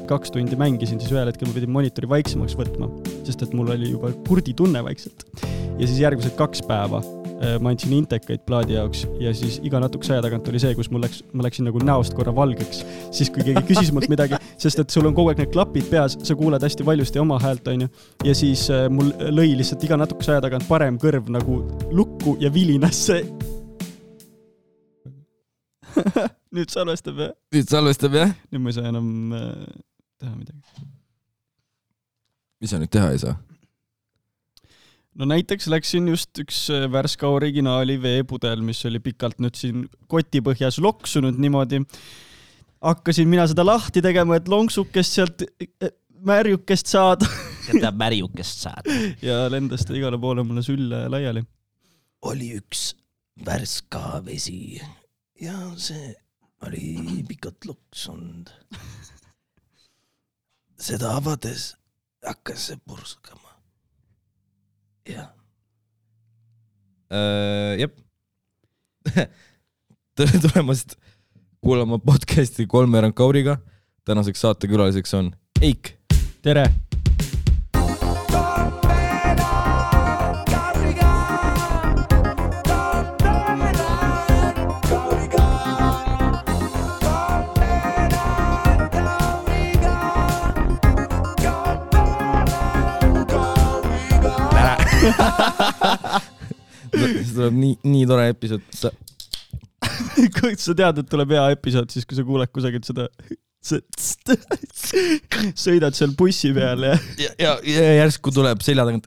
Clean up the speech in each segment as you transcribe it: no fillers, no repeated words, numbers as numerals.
2 tundi mängisin, siis ühel hetkel ma pidin monitori vaiksemaks võtma, sest et mul oli juba kurdi tunne vaikselt. Ja siis järgmised 2 päeva ma andsin intekaid plaadi jaoks ja siis iga natukese aja tagant oli see, kus ma läksin nagu näost korra valgeks, siis kui keegi küsis mult midagi, sest et sul on kogu aeg need klapid peas, sa kuuled hästi valjusti oma häält, on ju, ja siis mul lõi lihtsalt iga natukese aja tagant parem kõrv nagu lukku ja vilinasse. Nüüd salvestab, jah? Nüüd ma ei saa enam teha midagi. Mis sa nüüd teha ei saa? No näiteks läksin just üks värska originaali veepudel, mis oli pikalt nüüd siin kotipõhjas loksunud niimoodi. Hakkasin mina seda lahti tegema, et lonksukest sealt märjukest saada. Seda märjukest saada. Ja lendas ta igale poole mulle sülle laiali. Oli üks värska vesi ja see oli pikalt loksunud. Seda avades hakkas see purskama. Jah. Jep. Tere tulemast kuulama podcasti 3 Kauriga. Tänaseks saatekülaliseks on Eik. Tere. See tuleb nii tore episood. Kui sa tead, et tuleb hea episood, siis kui sa kuuled kusagilt seda sõidad seal bussi peal ja järsku tuleb selja tagant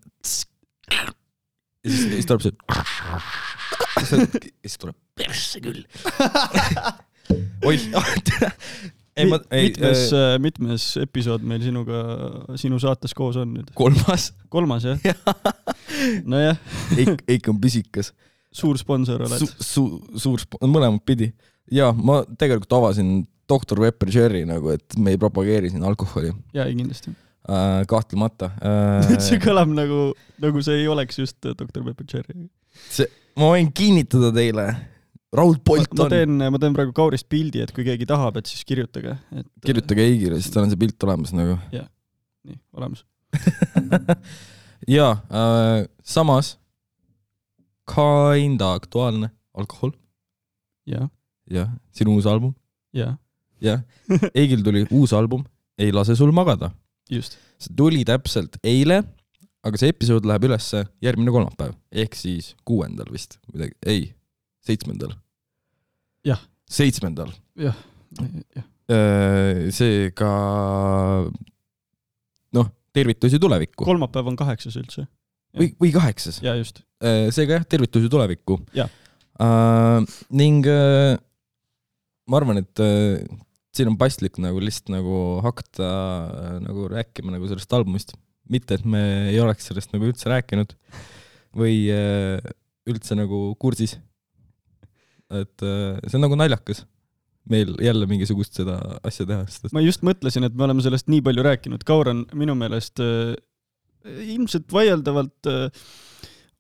ja siis tuleb see ja siis tuleb persse küll. Mitmes episood meil sinu saates koos on nüüd? 3. jah? No jah. Eik on pisikas. Suur sponsor oled. Suur mõlemad pidi. Ja ma tegelikult avasin Dr. Pepper Cherry nagu, et me ei propageeri siin alkoholi. Jaa, kindlasti. Kahtlemata. See kõlab nagu see ei oleks just Dr. Pepper Cherry. Ma võin kinnitada teile. Raul Polt on. Ma teen praegu Kaurist pildi, et kui keegi tahab, et siis kirjutage. Kirjutage Eigile, siis tal on see pilt olemas nagu. Jah, nii, olemas. Ja, samas kinda aktuaalne alkohol. Ja, sinu uus album. Ja. Eigil tuli uus album, Ei lase sul magada. Just. See tuli täpselt eile, aga see episood läheb üles järgmine kolmapäev, ehk siis 6. vist. Ei, 7. Jah. 7. Jah. Seega tervitusi tulevikku. Kolmapäev on 8 üldse. Või 8. Ja just. Seega tervitusi tulevikku. Ja. Ning ma arvan, et siin on paslik nagu lihtsalt nagu hakata nagu rääkima nagu sellest albumist. Mitte, et me ei oleks sellest nagu üldse rääkinud või üldse nagu kursis. Et see on nagu naljakas meil jälle mingisugust seda asja teha. Ma just mõtlesin, et me oleme sellest nii palju rääkinud. Kaur on minu meelest ilmselt vaieldavalt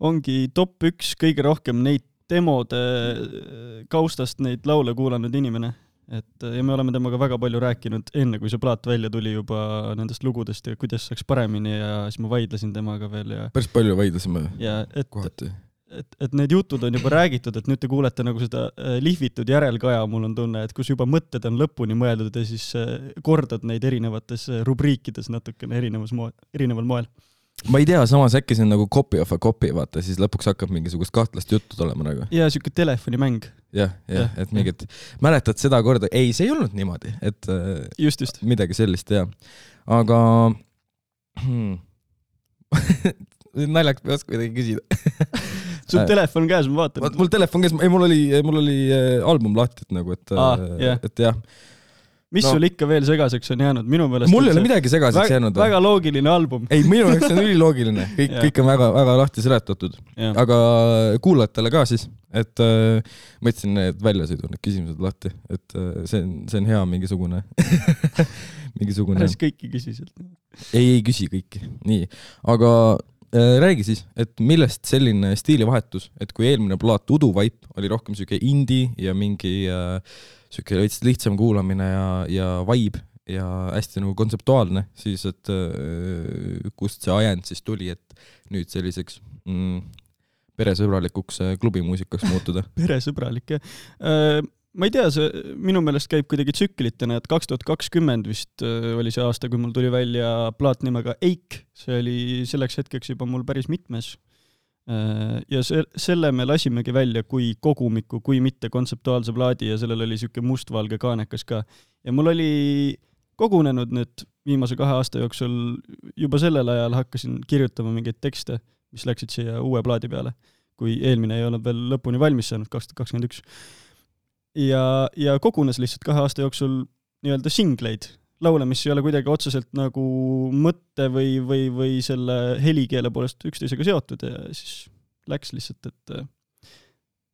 ongi top 1 kõige rohkem neid demode kaustast neid laule kuulanud inimene. Ja me oleme temaga väga palju rääkinud enne, kui see plaat välja tuli juba nendest lugudest ja kuidas saaks paremini ja siis ma vaidlesin temaga veel. Päris palju vaidlesime kohati. Et need jutud on juba räägitud, et nüüd te kuulete nagu seda lihvitud järelkaja, mul on tunne, et kus juba mõtted on lõpuni mõeldud ja siis kordad neid erinevates rubriikides natukene erineval moel. Ma ei tea, samas äkki see on nagu copy of a copy, vaata, siis lõpuks hakkab mingisugust kahtlast juttu olema nagu. Ja siuke telefonimäng. Jah, et mingit, mäletad seda korda, ei, see ei olnud niimoodi, et just. Midagi sellist, jah. Aga naljaks ei oska midagi küsida. Sul telefon käes, ma vaatan. Mul telefon käes, ei, mul oli album lahti, et nagu, et jah. Mis sul ikka veel segaseks on jäänud? Minu meelest mul ei ole midagi segaseks jäänud. Väga loogiline album. Ei, minu jaoks on üliloogiline. Kõik on väga, väga lahti seletatud. Aga kuulajatele ka siis, et ma ütlesin need väljasõidu, need küsimused lahti, et see on hea mingisugune. Päris kõiki küsisid. Ei küsi kõiki. Nii, aga räägi siis, et millest selline stiilivahetus, et kui eelmine plaat Udu Vaip oli rohkem selline indie ja mingi selline lihtsam kuulamine ja vibe, ja hästi nagu kontseptuaalne, siis et kust see ajend siis tuli, et nüüd selliseks peresõbralikuks klubimuusikaks muutuda. Peresõbralik, jah. Ma ei tea, see minu meelest käib kuidagi tsüklitena, et 2020 vist oli see aasta, kui mul tuli välja plaat nimega Eik. See oli selleks hetkeks juba mul päris mitmes. Ja selle me lasimegi välja kui kogumiku, kui mitte kontseptuaalse plaadi ja sellel oli siuke mustvalge kaanekas ka. Ja mul oli kogunenud nüüd viimase 2 aasta jooksul, juba sellel ajal hakkasin kirjutama mingeid tekste, mis läksid siia uue plaadi peale, kui eelmine ei olnud veel lõpuni valmis saanud, 2021. Ja kogunes lihtsalt 2 aasta jooksul nii-öelda singleid, laule, mis ei ole kuidagi otseselt nagu mõtte või selle helikeele poolest üksteisega seotud ja siis läks lihtsalt, et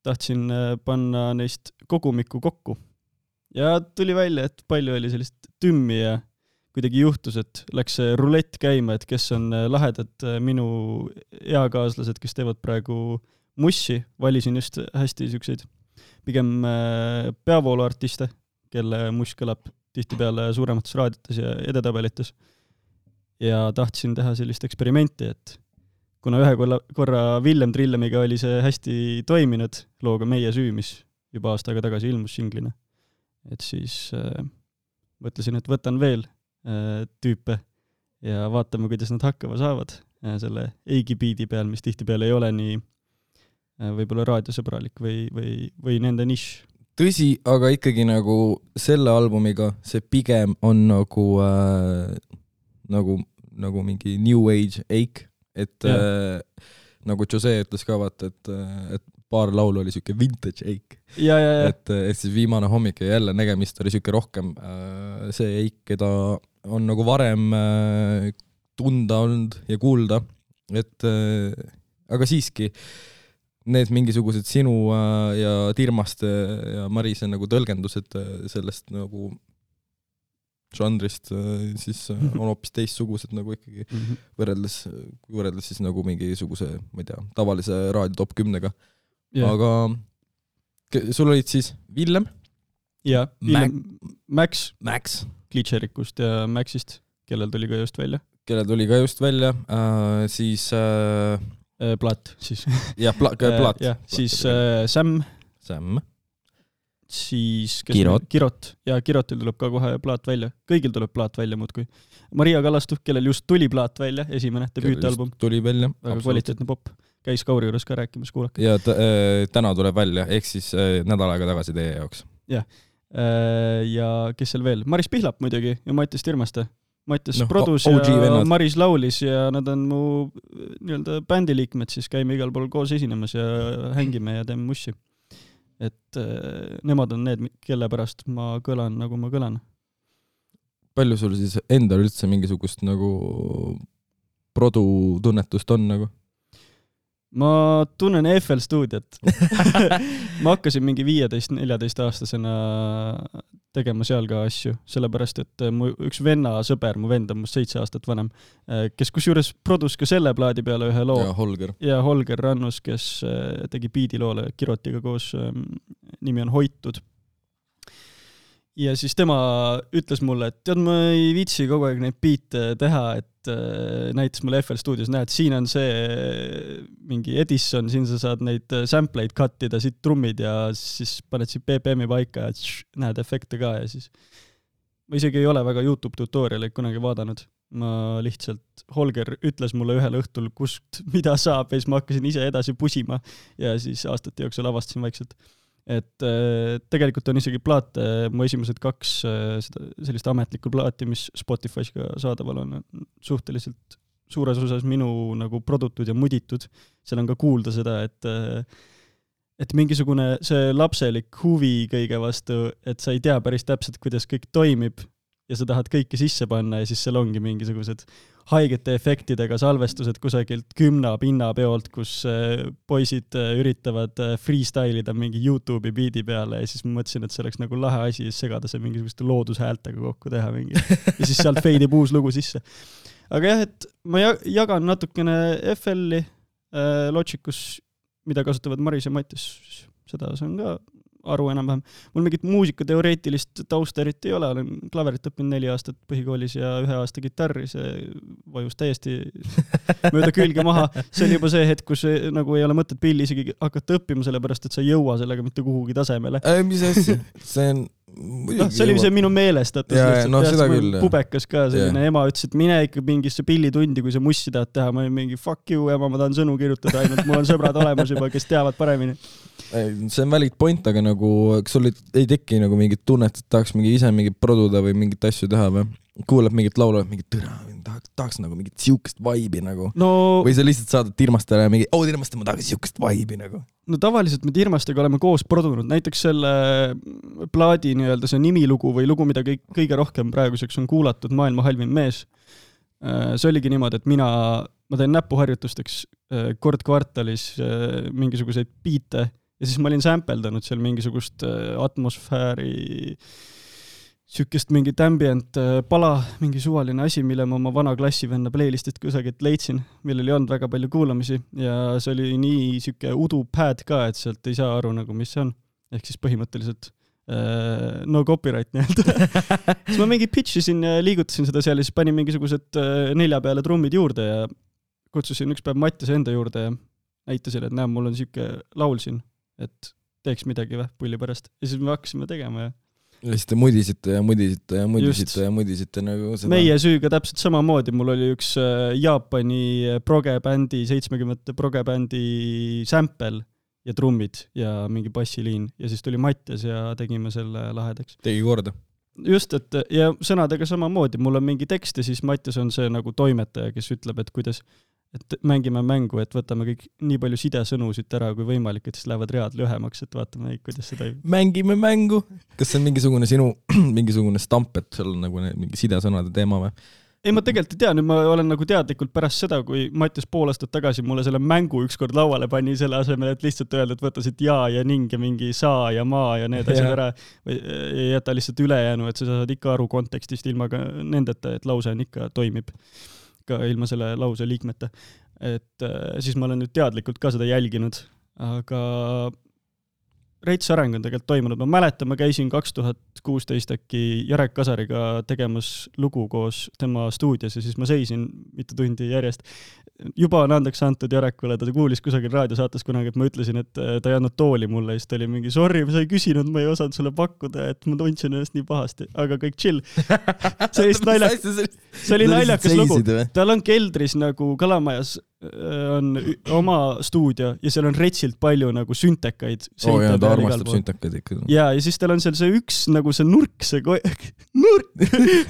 tahtsin panna neist kogumikku kokku. Ja tuli välja, et palju oli sellist tümmi ja kuidagi juhtus, et läks see rulett käima, et kes on lahedad minu eakaaslased, kes teevad praegu mussi, valisin just hästi siukseid pigem peavooluartiste, kelle muss kõlab tihtipeale suuremates raadiotes ja edetabelites. Ja tahtsin teha sellist eksperimenti, et kuna ühe korra Villem Trillemiga oli see hästi toiminud looga Meie süü, mis juba aasta aega tagasi ilmus singlina, et siis mõtlesin, et võtan veel tüüpe ja vaatame, kuidas nad hakkama saavad selle Eigi biidi peal, mis tihtipeale ei ole nii võib-olla raadiosõbralik või nende nišš. Tõsi, aga ikkagi nagu selle albumiga see pigem on nagu mingi New Age Eik, et nagu Jose ütles ka vaata, et paar laulu oli siuke vintage Eik. Et siis viimane hommik ja jälle nägemist oli siuke rohkem see Eik, keda on nagu varem tunda olnud ja kuulda, et aga siiski need mingisugused sinu ja Tirmaste ja Marise nagu tõlgendused sellest nagu žanrist siis on hoopis teistsugused nagu ikkagi võrreldes siis nagu mingisuguse, ma ei tea, tavalise raadio top 10-ga. Aga sul olid siis Villem? Ja, Villem, Max Glitcherikust ja Maxist, kellel tuli ka just välja. Siis Plaat siis. Ja, plaat. Siis Sam. Siis Kirot. Ja Kirotil tuleb ka kohe plaat välja. Kõigil tuleb plaat välja muudkui. Maria Kallastu, kellel just tuli plaat välja, esimene debüütalbum. Tuli välja. Väga kvaliteetne pop. Käis Kauri juures ka rääkimas, kuulake. Ja täna tuleb välja, ehk siis nädal aega tagasi teie jaoks. Ja. Ja kes seal veel? Maris Pihlap muidugi ja Mattias Tirmaste. Mattias produs ja Maris laulis ja nad on mu nii-öelda bändiliikmed, siis käime igal pool koos esinemas ja hängime ja teeme mussi. Et nemad on need, kelle pärast ma kõlan, nagu ma kõlan. Palju sul siis endal üldse mingisugust nagu produtunnetust on nagu? Ma tunnen FL stuudiot. Ma hakkasin mingi 15-14 aastasena tegema seal ka asju, sellepärast, et mu üks sõber, mu vend on must 7 aastat vanem, kes kusjuures produs ka selle plaadi peale ühe loo. Ja Holger Rannus, kes tegi biidiloole Kirotiga koos, nimi on Hoitud. Ja siis tema ütles mulle, et tead, ma ei viitsi kogu aeg neid biite teha, et näitas mulle FL Studios, näed, siin on see mingi Edison, siin sa saad neid sampleid kattida, siit trummid ja siis paned siit BPM-i paika ja näed efekte ka ja siis ma isegi ei ole väga YouTube tutorialeid kunagi vaadanud. Ma lihtsalt, Holger ütles mulle ühel õhtul, kust mida saab ja siis ma hakkasin ise edasi pusima ja siis aastate jooksul avastasin vaikselt. Et tegelikult on isegi plaate, mu esimesed 2 sellist ametlikku plaati, mis Spotify's ka saadaval on suhteliselt suures osas minu nagu produtud ja muditud. Seal on ka kuulda seda, et mingisugune see lapselik huvi kõige vastu, et sa ei tea päris täpselt, kuidas kõik toimib ja sa tahad kõike sisse panna ja siis seal ongi mingisugused haigete efektidega salvestused kusagilt 10 pinnapeolt, kus poisid üritavad freestylida mingi YouTube'i biidi peale ja siis ma mõtlesin, et see oleks nagu lahe asi segada see mingisuguste loodushäältega kokku teha mingi. Ja siis sealt feidib uus lugu sisse. Aga jah, et ma jagan natukene FL-i Logicus, mida kasutavad Maris ja Mattias. Seda saan ka aru enam-vähem. Mul mingit muusikateoreetilist tausta eriti ei ole, olen klaverit õppinud 4 aastat põhikoolis ja 1 aasta kitarri, see vajus täiesti mööda külge maha. See oli juba see hetk, kus nagu ei ole mõtet pilli isegi hakata õppima, sellepärast et sa ei jõua sellega mitte kuhugi tasemele. Mis asja? See on see oli see minu meelestatus. Seda küll. Pubekas ka selline ema ütles, et mine ikka mingisse pillitundi, kui sa mussi tahad teha. Ma olin mingi fuck you, ema, ma tahan sõnu kirjutada ainult. Mul on sõbrad olemas juba, kes teavad paremini. See on valid point, aga nagu, kas sul ei teki nagu mingit tunnet, et tahaks ise mingit produda või mingit asju teha või? Kuuleb mingit laulu, mingit tõra, tahaks nagu mingit siukest vaibi nagu. Või sa lihtsalt saadad Tirmastele mingi, Tirmaste, ma tahaks siukest vaibi nagu. No tavaliselt me Tirmastega oleme koos produnud. Näiteks selle plaadi nii-öelda see nimilugu või lugu, mida kõige rohkem praeguseks on kuulatud, Maailma halvim mees. See oligi niimoodi, et ma teen näpuharjutusteks kord kvartalis mingisuguseid biite ja siis ma olin sampeldanud seal mingisugust atmosfääri sükest mingit ambient pala, mingi suvaline asi, mille ma oma vana klassivenna playlistist kusagilt leidsin, millel ei olnud väga palju kuulamisi ja see oli nii süke udu pad ka, et sealt ei saa aru nagu, mis see on. Ehk siis põhimõtteliselt no copyright nii-öelda. Siis ma mingi pitchisin ja liigutasin seda seal ja siis panin mingisugused 4 peale trummid juurde ja kutsusin üks päev Mattiase enda juurde ja näitasin, et mul on süke laul siin, et teeks midagi pulli pärast. Ja siis me hakkasime tegema ja siis te mudisite nagu seda. Meie süüga täpselt samamoodi. Mul oli üks Jaapani progebändi, 70 progebändi sample ja trummid ja mingi bassiliin. Ja siis tuli Mattias ja tegime selle lahedaks. Tegi korda. Just, et ja sõnadega samamoodi. Mul on mingi tekst ja siis Mattias on see nagu toimetaja, kes ütleb, et kuidas et mängime mängu, et võtame kõik nii palju sidesõnu siit ära kui võimalik, et siis lähevad read lühemaks, et vaatame, kuidas seda Mängime mängu. Kas see on mingisugune sinu mingisugune stamp, et seal on nagu mingi sidesõnade teema või? Ei, ma tegelikult ei tea, nüüd ma olen nagu teadlikult pärast seda, kui Mattias pool aastat tagasi mulle selle mängu ükskord lauale pani selle asemel, et lihtsalt öelda, et võta siit ja ning ja mingi saa ja maa ja need asjad ära või jäta lihtsalt ülejäänu, et sa saad ikka aru kontekstist ilma ka nendeta, et lause on ikka toimib ka ilma selle lause liikmete. Et siis ma olen nüüd teadlikult ka seda jälginud, aga reits areng on tegelikult toimunud. Ma mäletan, ma käisin 2016 äkki Jarek Kasariga tegemas lugu koos tema stuudios ja siis ma seisin mitu tundi järjest. Juba on andeks antud Jarekule, ta kuulis kusagil raadiosaates kunagi, et ma ütlesin, et ta ei andnud tooli mulle ja siis ta oli mingi, sorry, sa ei küsinud, ma ei osanud sulle pakkuda, et ma tundsin ennast nii pahasti, aga kõik chill. See oli naljakas lugu. Tal on keldris nagu Kalamajas on oma stuudio ja seal on retsilt palju nagu süntekaid. Ja ta armastab süntekaid ikka. Ja siis tal on seal see üks nagu see nurk,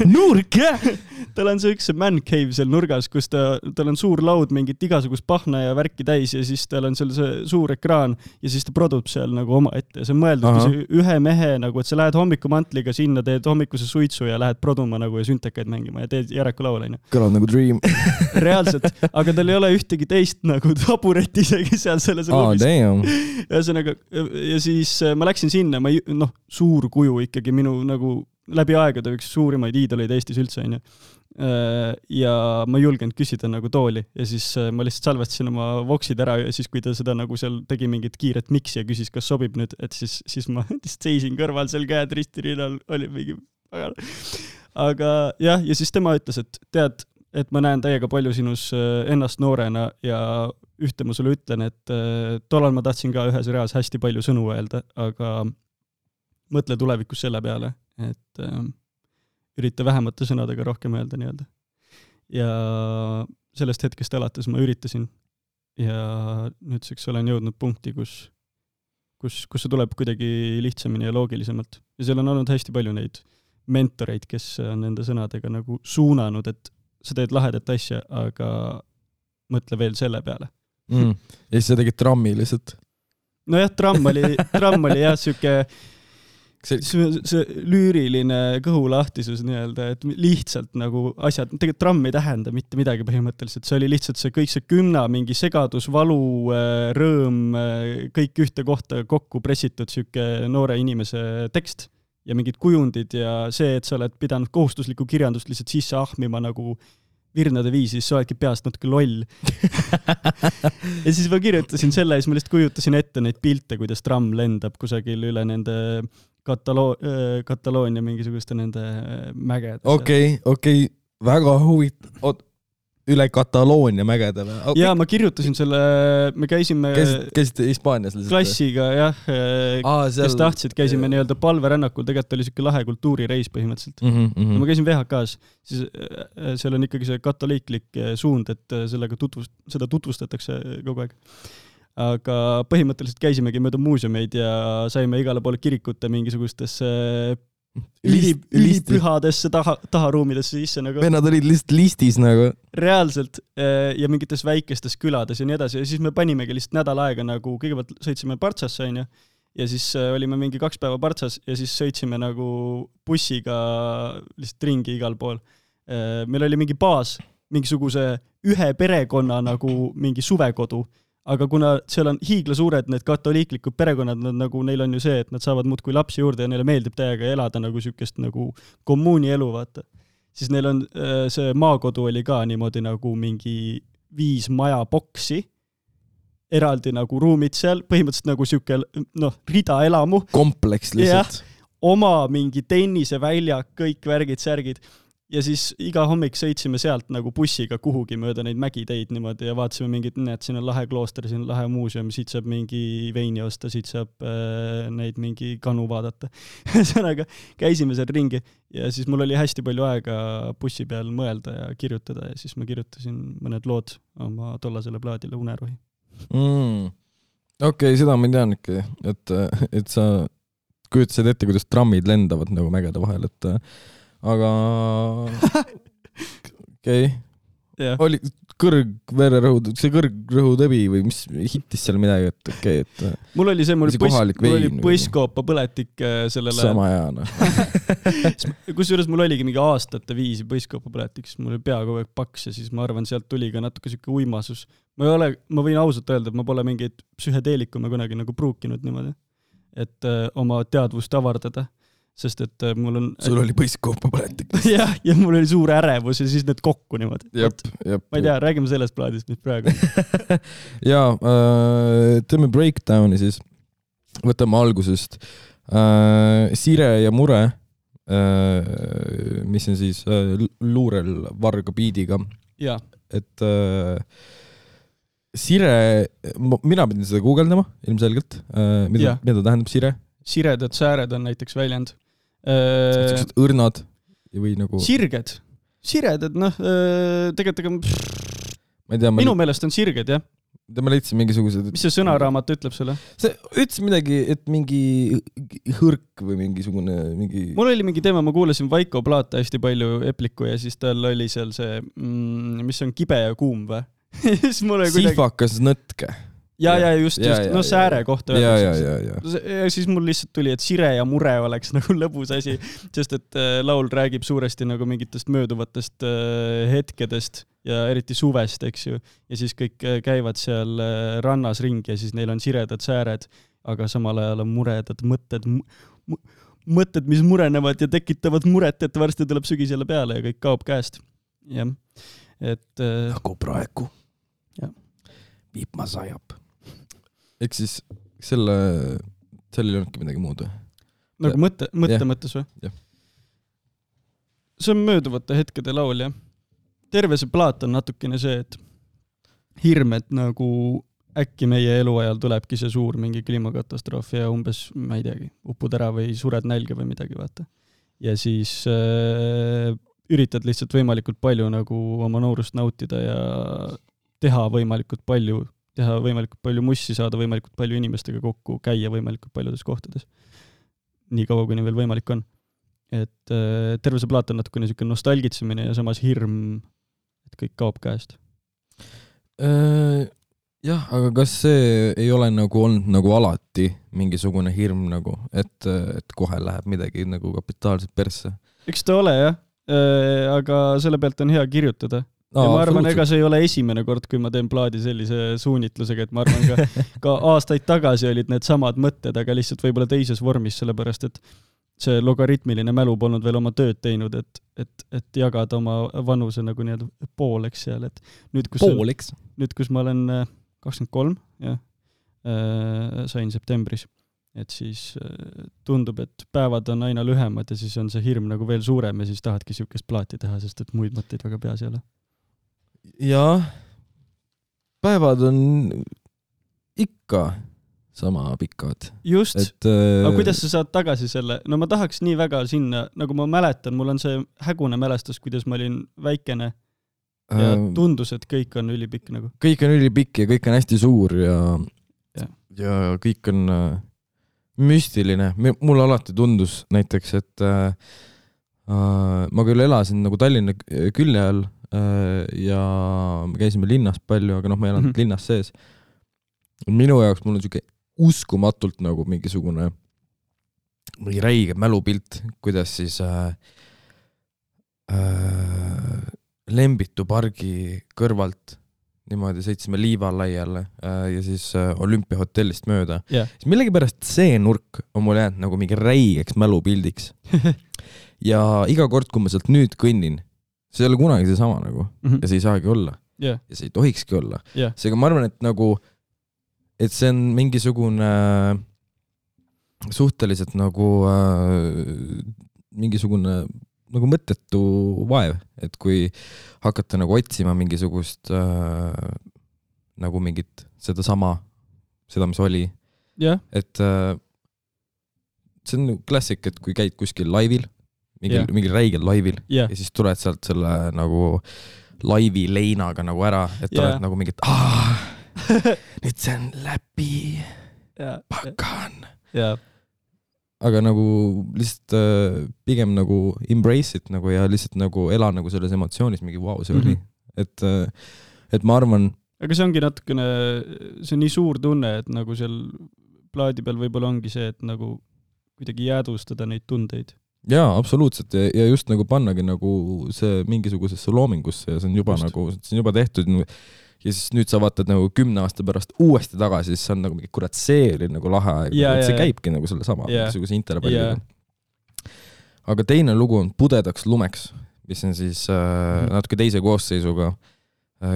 nurk, jah! Tal on see üks man cave seal nurgas, kus tal on suur laud mingit igasugust pahna ja värki täis ja siis tal on seal see suur ekraan ja siis ta produb seal nagu oma ette. See on mõeldud ühe mehe nagu, et sa lähed hommikumantliga sinna, teed hommikuse suitsu ja lähed produma nagu ja süntekaid mängima ja teed Jareku laul. Kõlab nagu dream. Reaalselt, aga tal ei ole ühtegi teist nagu taburet isegi seal selles ruumis. Ja siis ma läksin sinna, suur kuju ikkagi minu nagu läbi aegade üks suurimaid iidoleid Eestis üldse on ju. Ja ma ei julgenud küsida nagu tooli ja siis ma lihtsalt salvestasin oma voksid ära ja siis kui ta seda nagu seal tegi mingit kiiret miksi ja küsis, kas sobib nüüd, et siis ma seisin kõrval seal käed ristirinnal, oli mingi aga jah, ja siis tema ütles, et tead, et ma näen täiega palju sinus ennast noorena ja ühte ma sulle ütlen, et tollal ma tahtsin ka ühes reas hästi palju sõnu öelda, aga mõtle tulevikus selle peale, et ürita vähemate sõnadega rohkem öelda nii-öelda. Ja sellest hetkest alates ma üritasin ja nüüdseks olen jõudnud punkti, kus see tuleb kuidagi lihtsamini ja loogilisemalt. Ja seal on olnud hästi palju neid mentoreid, kes on nende sõnadega nagu suunanud, et sa teed lahedat asja, aga mõtle veel selle peale. Ja siis sa tegid trammi lihtsalt? No jah, tramm oli jah süke see lüüriline kõhulahtisus nii-öelda, et lihtsalt nagu asjad, tegelikult tramm ei tähenda mitte midagi põhimõtteliselt, see oli lihtsalt see kõik see kümna mingi segadus, valu, rõõm, kõik ühte kohta kokku pressitud süke noore inimese tekst ja mingid kujundid ja see, et sa oled pidanud kohustuslikku kirjandust lihtsalt sisse ahmima nagu virnade viisi, siis sa oledki peast natuke loll. Ja siis ma kirjutasin selle ja siis ma lihtsalt kujutasin ette neid pilte, kuidas tramm lendab kusagil üle nende Kataloonia mingisuguste nende mägede. Okei, väga huvitav. Üle Kataloonia mägede või? Okay. Ja ma kirjutasin selle, me käisime käisite Hispaanias lihtsalt? Klassiga, jah, kes tahtsid, käisime nii-öelda palverännakul, tegelikult oli siuke lahe kultuurireis põhimõtteliselt. Ja ma käisin VHK-s, siis seal on ikkagi see katoliiklik suund, et seda tutvustatakse kogu aeg. Aga põhimõtteliselt käisimegi mööda muuseumeid ja saime igale poole kirikute mingisugustesse ülipühadesse taharuumidesse sisse nagu. Vennad olid lihtsalt listis nagu. Reaalselt ja mingites väikestes külades ja nii edasi. Ja siis me panimegi lihtsalt nädal aega nagu, kõigepealt sõitsime Partsasse ja siis olime mingi 2 päeva Partsas ja siis sõitsime nagu bussiga lihtsalt ringi igal pool. Meil oli mingi baas, mingisuguse ühe perekonna nagu mingi suvekodu. Aga kuna seal on hiiglasuured need katoliiklikud perekonnad, nagu neil on ju see, et nad saavad muudkui lapsi juurde ja neile meeldib täiega elada nagu sükest nagu kommuuni elu, vaata. Siis neil on see maakodu oli ka niimoodi nagu mingi 5 majaboksi, eraldi nagu ruumid seal, põhimõtteliselt nagu süke, rida elamu. Kompleks lihtsalt. Ja, oma mingi tenniseväljak, kõik värgid, särgid. Ja siis iga hommik sõitsime sealt nagu bussiga kuhugi mööda neid mägiteid niimoodi ja vaatasime mingid, et siin on lahe klooster, siin on lahe muuseum, siit saab mingi veini osta, siit saab neid mingi kanu vaadata. Sõnaga käisime seal ringi ja siis mul oli hästi palju aega bussi peal mõelda ja kirjutada ja siis ma kirjutasin mõned lood oma tollasele plaadile Unerohi. Okei, seda ma tean ikka, et sa kujutasid ette, kuidas trammid lendavad nagu mägede vahel, et aga okei. Oli kõrgvererõhud, see kõrgrõhutõbi või mis hittis seal midagi, et okei, et mul oli see, mul oli põiskoopa põletik sellele. Sama hea, Kusjuures mul oligi mingi aastate viisi põiskoopa põletik, siis mul oli pea kogu aeg paks ja siis ma arvan, sealt tuli ka natuke siuke uimasus. Ma võin ausalt öelda, et ma pole mingeid psühhedeelikume kunagi nagu pruukinud niimoodi, et oma teadvust avardada. Sest et mul on... Sul oli põiskoopa põletik. Ja mul oli suur ärevus ja siis need kokku niimoodi. Jep. Ma ei tea, räägime sellest plaadist, mis praegu. Teeme breakdowni siis. Võtame algusest. Sire ja Mure, mis on siis luurel varga biidiga. Ja. Et Sire, mina pidin seda guugeldama ilmselgelt. Mida tähendab Sire? Siredad sääred on näiteks väljend. Õrnad või nagu... Sirged. Siredad, tegelikult ma ei tea, minu meelest on sirged, jah. Ma leidsin mingisugused... Mis see sõnaraamat ütleb sulle? See ütles midagi, et mingi hõrk või mingisugune... Mul oli mingi teema, ma kuulasin Vaiko Plaata hästi palju Epliku ja siis tal oli seal see, mis on kibe ja kuum või? Sifakas nõtke. Ja just, sääre kohta. Ja. Siis mul lihtsalt tuli, et Sire ja Mure oleks nagu lõbus asi, sest et laul räägib suuresti nagu mingitest mööduvatest hetkedest ja eriti suvest, eks ju. Ja siis kõik käivad seal rannas ringi ja siis neil on siredad sääred, aga samal ajal on muredad mõtted, mis murenevad ja tekitavad muret, et varsti tuleb sügis jälle peale ja kõik kaob käest. Jah. Et... Nagu praegu. Ja. Viipma sajab. Ehk siis sellel ei olnudki midagi muud või? Nagu mõttes või? Jah. See on mööduvate hetkede laul, jah. Terve see plaat on natukene see, et hirm, et nagu äkki meie eluajal tulebki see suur mingi kliimakatastroof ja umbes, ma ei teagi, upud ära või sured nälga või midagi, vaata. Ja siis üritad lihtsalt võimalikult palju nagu oma noorust nautida ja teha võimalikult palju mussi, saada võimalikult palju inimestega kokku, käia võimalikult paljudes kohtades. Nii kaua, kuni veel võimalik on. Et terve see plaat on natukene niisugune nostalgitsemine ja samas hirm, et kõik kaob käest. Jah, aga kas see ei ole nagu olnud nagu alati mingisugune hirm nagu, et kohe läheb midagi nagu kapitaalselt persse? Eks ta ole, jah. Aga selle pealt on hea kirjutada. Ja ma arvan, ega see ei ole esimene kord, kui ma teen plaadi sellise suunitlusega, et ma arvan ka aastaid tagasi olid need samad mõtted, aga lihtsalt võib-olla teises vormis, sellepärast et see logaritmiline mälu polnud veel oma tööd teinud, et jagada oma vanuse nagu nii-öelda pooleks seal, et nüüd, kus ma olen 23, jah, sain septembris, et siis tundub, et päevad on aina lühemad ja siis on see hirm nagu veel suurem ja siis tahadki siukest plaati teha, sest et muid mõtteid väga peas ei ole. Jaa, päevad on ikka sama pikad. Just, aga kuidas sa saad tagasi selle? No ma tahaks nii väga sinna, nagu ma mäletan, mul on see hägune mälestus, kuidas ma olin väikene ja tundus, et kõik on ülipikk nagu. Kõik on ülipikk ja kõik on hästi suur ja kõik on müstiline. Mulle alati tundus näiteks, et ma küll elasin nagu Tallinna külje all ja me käisime linnas palju, aga ma ei elanud linnas sees. Minu jaoks mul on siuke uskumatult nagu mingisugune räige mälupilt, kuidas siis Lembitu pargi kõrvalt niimoodi sõitsime Liivalaiale ja siis Olümpiahotellist mööda. Siis millegipärast see nurk on mul jäänud nagu mingi räigeks mälupildiks. Ja iga kord, kui ma sealt nüüd kõnnin, see ei ole kunagi see sama nagu. Ja see ei saagi olla. Ja see ei tohikski olla. Seega ma arvan, et nagu et see on mingisugune suhteliselt nagu mingisugune nagu mõttetu vaev, et kui hakata nagu otsima mingisugust nagu mingit seda, mis oli. Et see on klassik, et kui käid kuskil laivil, mingil räigel laivil ja siis tuled sealt selle nagu laivi leinaga nagu ära, et oled nagu mingit nüüd see on läbi pakan. Aga nagu lihtsalt pigem nagu embrace it nagu ja lihtsalt nagu ela nagu selles emotsioonis mingi see oli. Et ma arvan... Aga see ongi natukene, see on nii suur tunne, et nagu seal plaadi peal võib-olla ongi see, et nagu kuidagi jäädvustada neid tundeid. Jaa, absoluutselt. Ja just nagu pannagi nagu see mingisugusesse loomingusse ja see on juba nagu, see on juba tehtud. Ja siis nüüd sa vaatad nagu 10 aasta pärast uuesti tagasi, siis see on nagu mingi kurat seeri nagu lahe aeg. See käibki nagu selle sama mingisuguse interpalliga. Aga teine lugu on Pudedaks lumeks, mis on siis natuke teise koosseisuga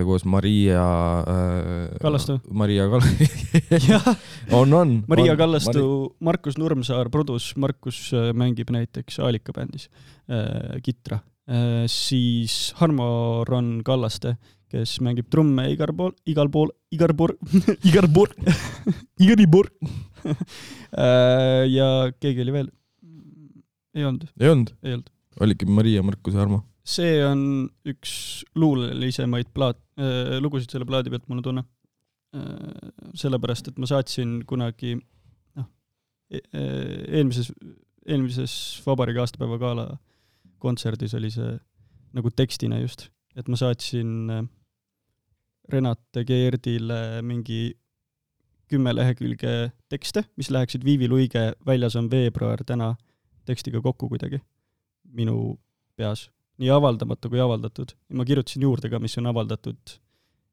koos Maria Kallastu. Maria Kallastu. on. Maria Kallastu, Markus Nurmsaar, produs, Markus mängib näiteks Aalika bändis kitra. Siis Harmo Ron Kallaste, kes mängib trumme igal pool. Ja keegi oli veel? Ei olnud. Oligi Maria, Markus ja Harmo. See on üks luulelisemaid lugusid selle plaadi pealt, mul tunne. Sellepärast, et ma saatsin kunagi eelmises Vabariigi aastapäeva gala kontserdis oli see nagu tekstina just, et ma saatsin Renate Geerdile mingi 10 lehekülge tekste, mis läheksid Viivi Luige Väljas on veebruar täna tekstiga kokku kuidagi minu peas. Nii avaldamatu kui avaldatud. Ja ma kirjutasin juurde ka, mis on avaldatud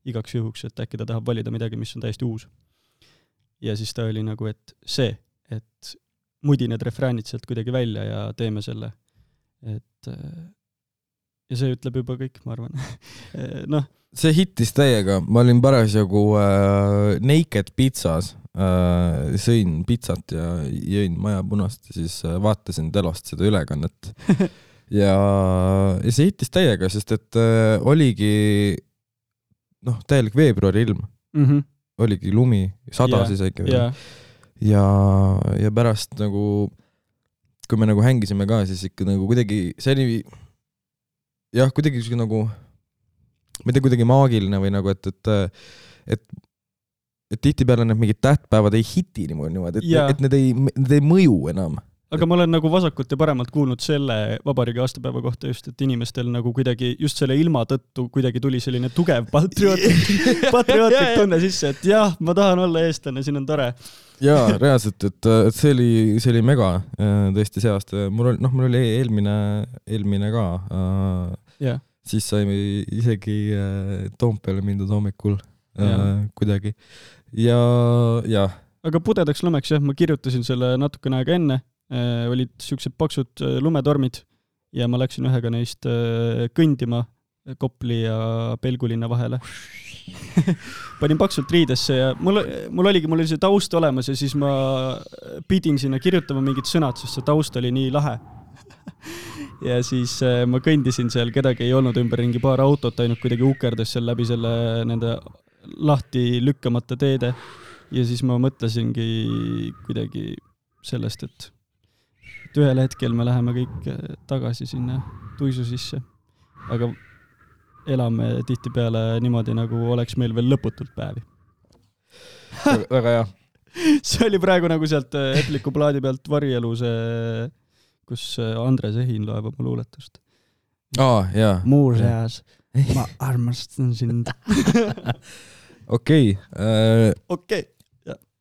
igaks juhuks, et äkki ta tahab valida midagi, mis on täiesti uus. Ja siis ta oli nagu, et see, et mudi need refräänid sealt kuidagi välja ja teeme selle. Ja see ütleb juba kõik, ma arvan. See hittis täiega. Ma olin parasjagu Naked Pizzas. Sõin pizzat ja jõin maja punast ja siis vaatasin telost seda ülekannet. Ja see hittis täiega, sest et oligi täielik veebruari ilm. Oligi lumi, sadas isegi. Ja pärast nagu, kui me nagu hängisime ka, siis ikka nagu kuidagi, see oli kuidagi nagu, ma ei tea, kuidagi maagiline või nagu, et tihti peale need mingid tähtpäevad ei hiti niimoodi, et need ei mõju enam. Aga ma olen nagu vasakult ja paremalt kuulnud selle Vabariigi aastapäeva kohta just, et inimestel nagu kuidagi just selle ilma tõttu kuidagi tuli selline tugev patriootlik tunne sisse, et jah, ma tahan olla eestlane, siin on tore. Jaa, reaalselt, et see oli mega tõesti see aasta. Mul oli eelmine ka. Siis saime isegi Toompeale mindud hommikul kuidagi. Ja aga Pudedaks lumeks, jah, ma kirjutasin selle natukene aega enne olid siuksed paksud lumetormid ja ma läksin ühega neist kõndima Kopli ja Pelgulinna vahele. Panin paksult riidesse ja mul oli see taust olemas ja siis ma pidin sinna kirjutama mingid sõnad, sest see taust oli nii lahe. Ja siis ma kõndisin seal, kedagi ei olnud ümberringi, paar autot ainult kuidagi ukerdas seal läbi selle nende lahti lükkamata teede. Ja siis ma mõtlesingi kuidagi sellest, et ühel hetkel me läheme kõik tagasi sinna tuisu sisse. Aga elame tihtipeale niimoodi, nagu oleks meil veel lõputult päevi. Väga hea. See oli praegu nagu sealt Epliku plaadi pealt Varielu see, kus Andres Ehin loeb oma luuletust. Jaa. Muuseas, ma armastan sind. Okei.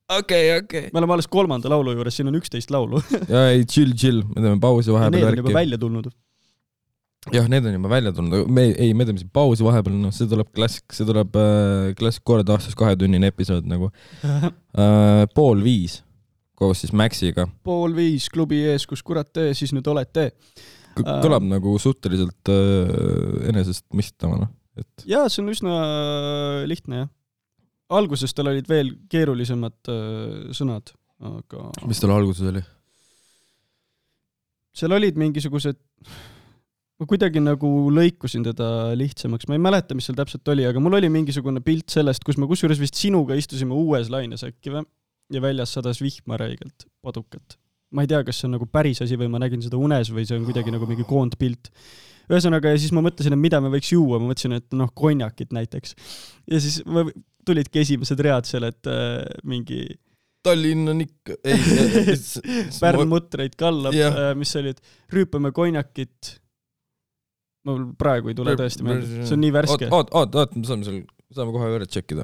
Me oleme alles 3. laulu juures, siin on 11 laulu. Ja ei, chill. Me teeme pausi vahepeal. Need on juba välja tulnud. Jah, need on juba välja tulnud. Me teeme siin pausi vahepeal. No, see tuleb klassik kord aastas 2-tunnine episood nagu. 4:30 koos siis Maxiga. 4:30 klubi ees, kus kurat tee, siis nüüd olete. Kõlab nagu suhteliselt enesest mistama. Jaa, see on üsna lihtne, jah. Alguses tal olid veel keerulisemad sõnad, aga... Mis tal alguses oli? Seal olid mingisugused... Ma kuidagi nagu lõikusin teda lihtsamaks. Ma ei mäleta, mis seal täpselt oli, aga mul oli mingisugune pilt sellest, kus me kusjuures vist sinuga istusime uues laines äkki või? Ja väljas sadas vihma räigelt padukat. Ma ei tea, kas see on nagu päris asi või ma nägin seda unes või see on kuidagi nagu mingi koondpilt. Ühesõnaga, ja siis ma mõtlesin, et mida me võiks juua. Ma mõtlesin, et konjakit näiteks. Ja siis tulidki esimesed read seal, et mingi... Tallinn on ikka... Pärnmutreid kallab, mis oli, et rüüpame konjakit. Ma praegu ei tule tõesti meelde. See on nii värske. Oot, me saame kohe üle tšekkida.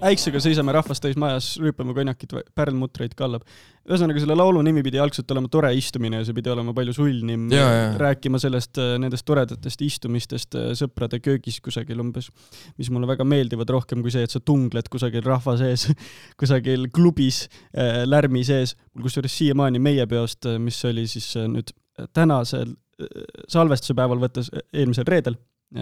Äiksega seisame rahvast täis majas, rüüpame konjakit, pärnmutreid kallab. Ühesõnaga, selle laulu nimi pidi algselt olema tore istumine ja see pidi olema palju sulnim. Rääkima sellest nendest toredatest istumistest sõprade köögis kusagil umbes, mis mulle väga meeldivad rohkem kui see, et sa tungled kusagil rahva sees, kusagil klubis, lärmi sees. Kusjuures siiamaani meie peost, mis oli siis nüüd tänasel salvestuse päeval võttes eelmisel reedel,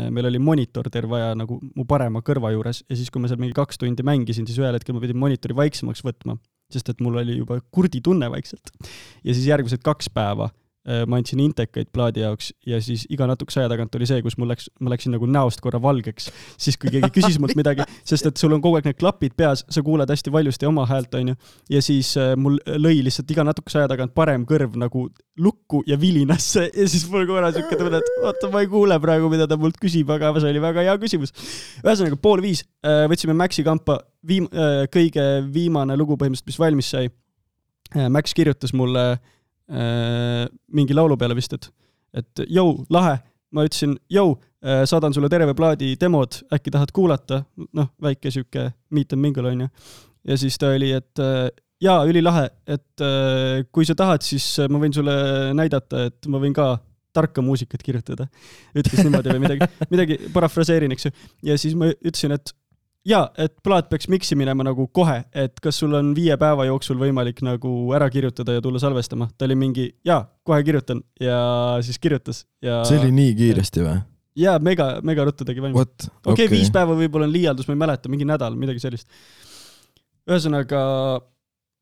meil oli monitor terve aja nagu mu parema kõrva juures ja siis, kui ma seal mingi 2 tundi mängisin, siis ühel hetkel ma pidin monitori vaiksemaks võtma, sest et mul oli juba kurdi tunne vaikselt. Ja siis järgmised 2 päeva ma andsin intekaid plaadi jaoks ja siis iga natukese aja tagant oli see, kus ma läksin nagu näost korra valgeks, siis kui keegi küsis mult midagi, sest et sul on kogu aeg need klapid peas, sa kuuled hästi valjusti oma häält, on ju, ja siis mul lõi lihtsalt iga natukese aja tagant parem kõrv nagu lukku ja vilinasse ja siis mul korra siuke tunne, et oota, ma ei kuule praegu, mida ta mult küsib, aga see oli väga hea küsimus. Ühesõnaga, 4:30 võtsime Maxi kampa kõige viimane lugu põhimõtteliselt, mis valmis sai. Max kirjutas mulle mingi laulu peale vist, et jõu, lahe, ma ütlesin, jõu, saadan sulle terve plaadi demod, äkki tahad kuulata, väike siuke meet and mingle on ju. Ja siis ta oli, et jaa, ülilahe, et kui sa tahad, siis ma võin sulle näidata, et ma võin ka tarka muusikat kirjutada. Ütles niimoodi või midagi parafraseerin, eks ju. Ja siis ma ütlesin, et jaa, et plaat peaks miksi minema nagu kohe, et kas sul on 5 päeva jooksul võimalik nagu ära kirjutada ja tulla salvestama. Ta oli mingi, jaa, kohe kirjutan ja siis kirjutas. Ja... See oli nii kiiresti või? Jaa, mega ruttu tegi valmis. Okei, 5 päeva võib-olla on liialdus, ma ei mäleta, mingi nädal, midagi sellist. Ühesõnaga,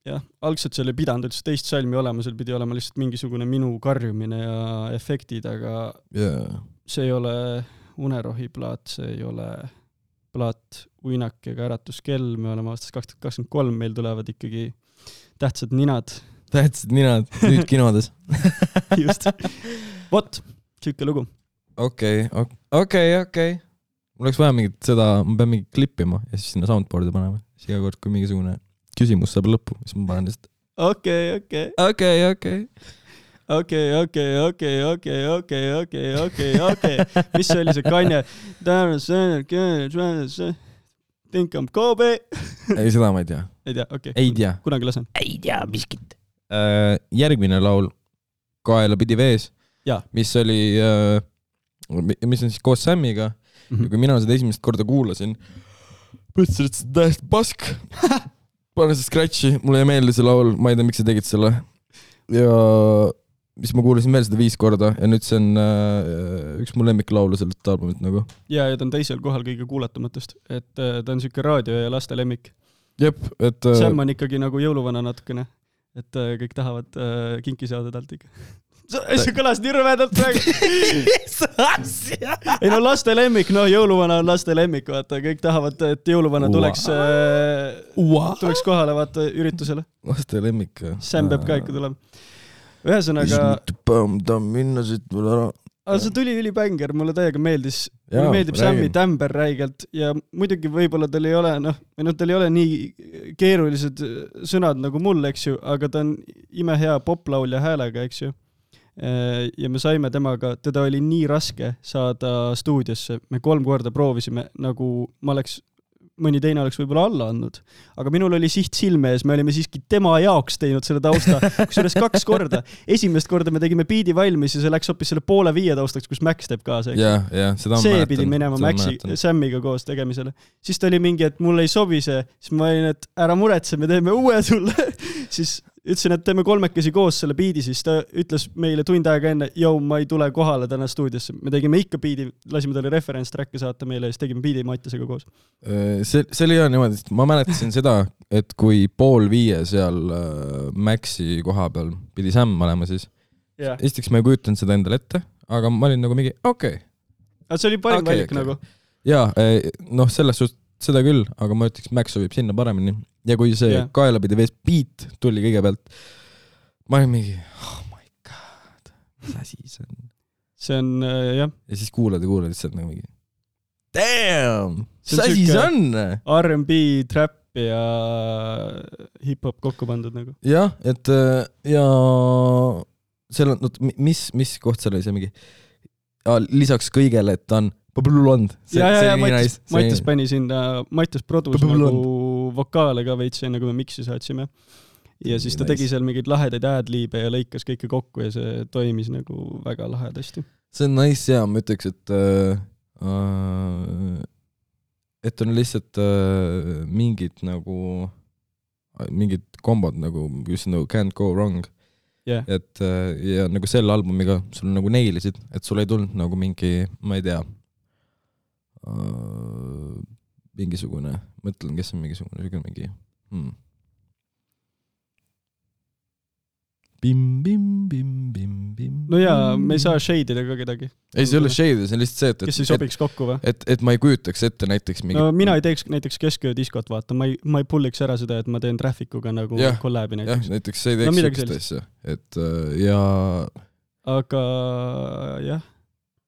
jah, algselt see oli pidanud üldse teist salmi olema, seal pidi olema lihtsalt mingisugune minu karjumine ja efektid, aga see ei ole unerohi plaat, see ei ole plaat Uinak ega Äratuskell, me oleme aastas 2023, meil tulevad ikkagi tähtsad ninad. Tähtsad ninad, nüüd kinodes. Just. Vot, siuke lugu. Okei. Mul oleks vaja mingit seda, ma pean mingit klippima ja siis sinna soundboardi panema. Siis iga kord, kui mingisugune küsimus saab lõppu, siis ma panen lihtsalt. Okei. Mis see oli see Kanye? Think I'm Kobe. Ei, seda ma ei tea. Ei tea, okei. Ei tea. Kunagi lasen. Ei tea, miskit. Järgmine laul Kaela pidi vees, mis oli, mis on siis koos Sammiga. Ja kui mina seda esimest korda kuulasin, mõtlesin, et see on täiesti pask. Pane see scratchi, mulle ei meeldi see laul, ma ei tea, miks sa tegid selle. Ja mis ma kuulasin veel seda 5 korda ja nüüd see on üks mu lemmiklaulu sellest albumit nagu. Ja ta on teisel kohal kõige kuulatumatest, et ta on siuke raadio ja laste lemmik. Jep, et... Sam on ikkagi nagu jõuluvana natukene, et kõik tahavad kinki saada talt ikka. See kõlas nii rõvedalt praegu. Ei no laste lemmik, jõuluvana on laste lemmik, vaata, kõik tahavad, et jõuluvana tuleks kohale vaata üritusele. Laste lemmik. Sam peab ka ikka tulema. Ühesõnaga... minna siit mul ära. See tuli ülibänger, mulle täiega meeldis. Mulle meeldib Sammi tämber räigelt ja muidugi võib-olla tal ei ole, tal ei ole nii keerulised sõnad nagu mul, eks ju, aga ta on imehea poplaulja häälega, eks ju. Ja me saime temaga, teda oli nii raske saada stuudiosse. Me 3 korda proovisime, nagu mõni teine oleks võib-olla alla andnud. Aga minul oli siht silme ees, me olime siiski tema jaoks teinud selle tausta, kusjuures 2 korda. Esimest korda me tegime biidi valmis ja see läks hoopis selle 4:30 taustaks, kus Max teeb ka see. See pidi minema Maxi Sammiga koos tegemisele. Siis ta oli mingi, et mulle ei sobi see, siis ma olin, et ära muretse, me teeme uue sulle. Siis ütlesin, et teeme 3 koos selle biidi, siis ta ütles meile tund aega enne, ma ei tule kohale täna stuudiosse. Me tegime ikka biidi, lasime talle reference-tracke saata meile ja siis tegime biidi Mattisega koos. See oli niimoodi, et ma mäletasin seda, et kui 4:30 seal Maxi koha peal pidi Sam olema siis. Esiteks ma ei kujutanud seda endale ette, aga ma olin nagu mingi, okei. See oli parim valik nagu. Jaa, selles suhtes seda küll, aga ma ütleks, Max sobib sinna paremini. Ja kui see kaelapidi vees beat tuli kõigepealt, ma olin mingi, oh my god, mis asi see on? See on, jah. Ja siis kuulad lihtsalt nagu mingi, damn, mis asi see on? R&B, trap ja hip-hop kokku pandud nagu. Jah, et ja seal on, mis koht seal oli see mingi, lisaks kõigele, et ta on Põblulond. Mattis pani sinna, Mattis produus nagu vokaale ka veits enne, kui me miksi saatsime. Ja siis ta tegi seal mingeid lahedaid ad-liibe ja lõikas kõike kokku ja see toimis nagu väga lahedasti. See on nice ja ma ütleks, et on lihtsalt mingid kombod nagu, just nagu can't go wrong. Et ja nagu selle albumiga sul nagu neilisid, et sul ei tulnud nagu mingi, ma ei tea, mingisugune, mõtlen, kes on mingisugune mingi No jaa, me ei saa shade'ida ka kedagi. Ei, see ei ole shade'ida, see on lihtsalt see, kes ei sobiks kokku või? Et ma ei kujutaks ette näiteks mingi... No mina ei teeks näiteks kesköödiskot, vaata, ma ei pulliks ära seda, et ma teen Trafficuga nagu kollabi näiteks. Jah, näiteks see ei teeks sükest asja. Et ja... Aga jah,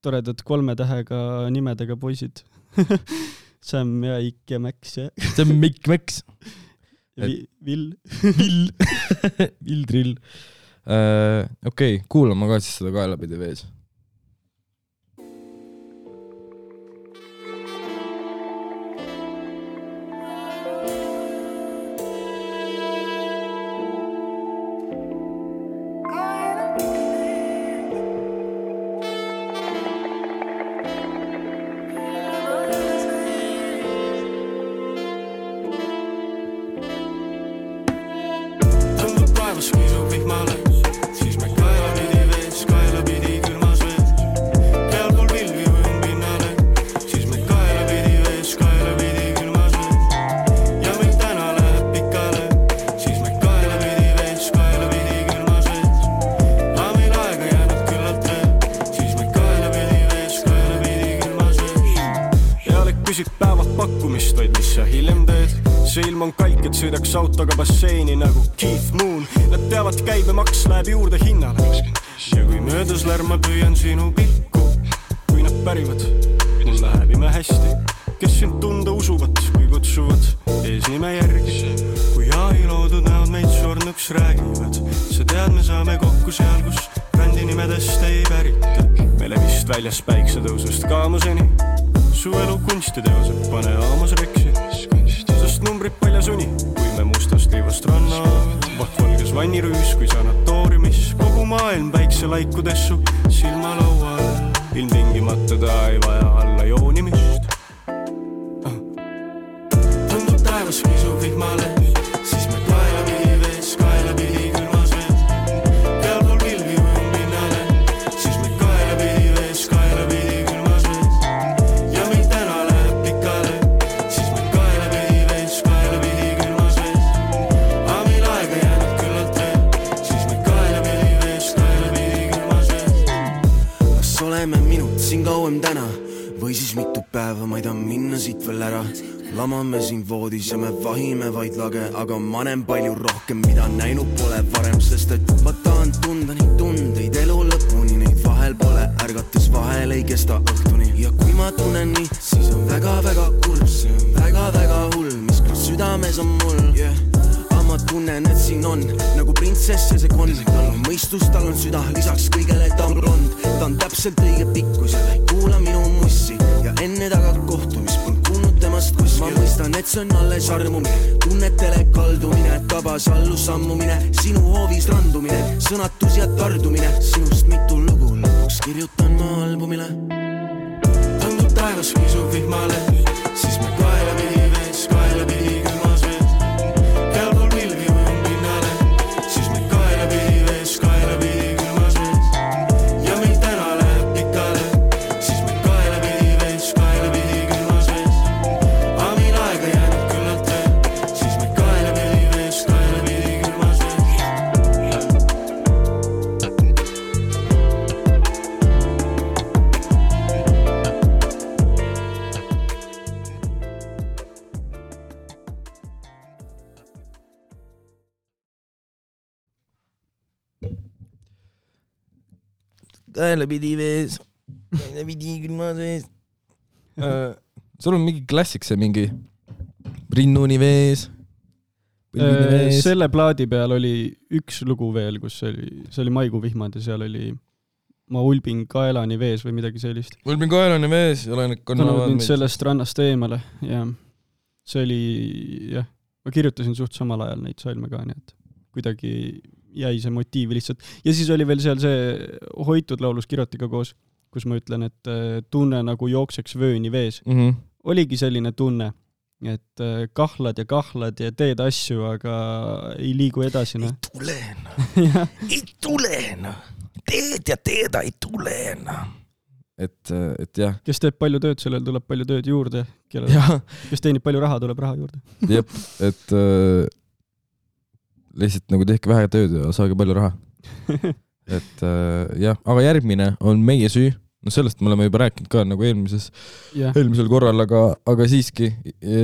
toredad 3 tähega nimedega poisid. Sam ja Ik ja Max ja... Sam, Ik, Max. Vill. Vill Drill. Okei, kuulama ka siis seda kaelapidi vees. Sõidaks autoga basseini nagu Keith Moon. Nad teavad, käibemaks läheb juurde hinnale. Ja kui möödas lärma püüan sinu pilku, kui nad pärivad, mul läheb ime hästi. Kes sind tunda usuvad, kui kutsuvad eesnime järgi. Kui AI loodud näod meid surnuks räägivad, sa tead, me saame kokku seal, kus brändi nimedest ei pärita. Meile vist väljas päiksetõusust kaamuseni, su elu kunstiteosed pane aamas reksi. Sest numbrid paljas uni, kui me mustast liivast ranna vahtvalges vannirüüs, kui sanatooriumis kogu maailm päikselaikudessu silmalaual. Ilmtingimata ta ei vaja alla joonimist. Tundub taevas kisub vihmale, siis kas oleme minut siin kauem täna või siis mitu päeva, ma ei taha minna siit veel ära. Lamame siin voodis ja me vahime vaid lage, aga ma näen palju rohkem, mida näinud pole varem, sest et ma tahan tunda neid tundeid elu lõpuni, neid vahel pole, ärgates vahel ei kesta õhtuni. Ja kui ma tunnen nii, siis on väga-väga kurb, see on väga-väga hull, mis küll südames on mul, yeah. Ma tunnen, et siin on nagu printsess ja see konn. Tal on mõistus, tal on süda, lisaks kõigele ta on blond. Ta on täpselt õige pikkus ja ta ei kuula minu mussi. Ja enne taga kohtumist polnud kuulnud temast kuskil. Ma mõistan, et see on alles armumine, tunnetele kaldumine, tabas allus sammumine, sinu hoovis randumine, sõnatus ja tardumine. Sinust mitu lugu lõpuks kirjutan ma albumile. Tundub taevas kisub vihmale, siis me kaela pidi vees, kaela pidi külmas vees. Kaela pidi vees, kaela pidi külmas vees. Sul on mingi klassik see mingi rinnuni vees, vees. Selle plaadi peal oli üks lugu veel, kus see oli Maikuu vihmad ja seal oli ma ulbin kaelani vees või midagi sellist. Ulbin kaelani vees ja olen kannavad mind sellest rannast eemale ja see oli, jah, ma kirjutasin suht samal ajal neid salme ka, nii et kuidagi jäi see motiiv lihtsalt. Ja siis oli veel seal see Hoitud laulus Kirotiga koos, kus ma ütlen, et tunne nagu jookseks vööni vees. Oligi selline tunne, et kahlad ja teed asju, aga ei liigu edasi. Ei tule. Teed ja teeda ei tule. Et jah. Kes teeb palju tööd, sellel tuleb palju tööd juurde. Kes teenib palju raha, tuleb raha juurde. Jep, et lihtsalt nagu tehke vähe tööd ja saage palju raha. Et jah, aga järgmine on Meie süü. No sellest me oleme juba rääkinud ka nagu eelmisel korral, aga siiski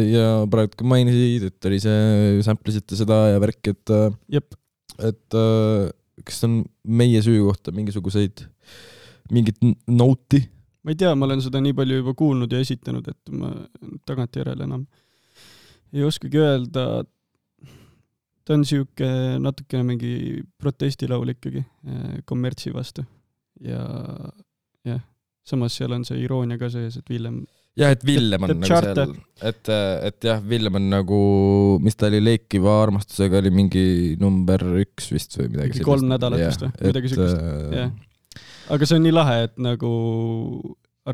ja praegu ka mainisid, et oli see samplisite seda ja värk, et kas on Meie süü kohta mingit noti? Ma ei tea, ma olen seda nii palju juba kuulnud ja esitanud, et ma tagantjärele enam ei oskagi öelda. Ta on siuke natukene mingi protestilaul ikkagi kommertsi vastu. Ja samas seal on see iroonia ka sees, et Villem... Jah, et Villem on nagu seal, et jah, Villem on nagu, mis ta oli Leikiva armastusega, oli mingi number 1 vist või midagi sellist. 3 nädalat vist või midagi sellist. Aga see on nii lahe, et nagu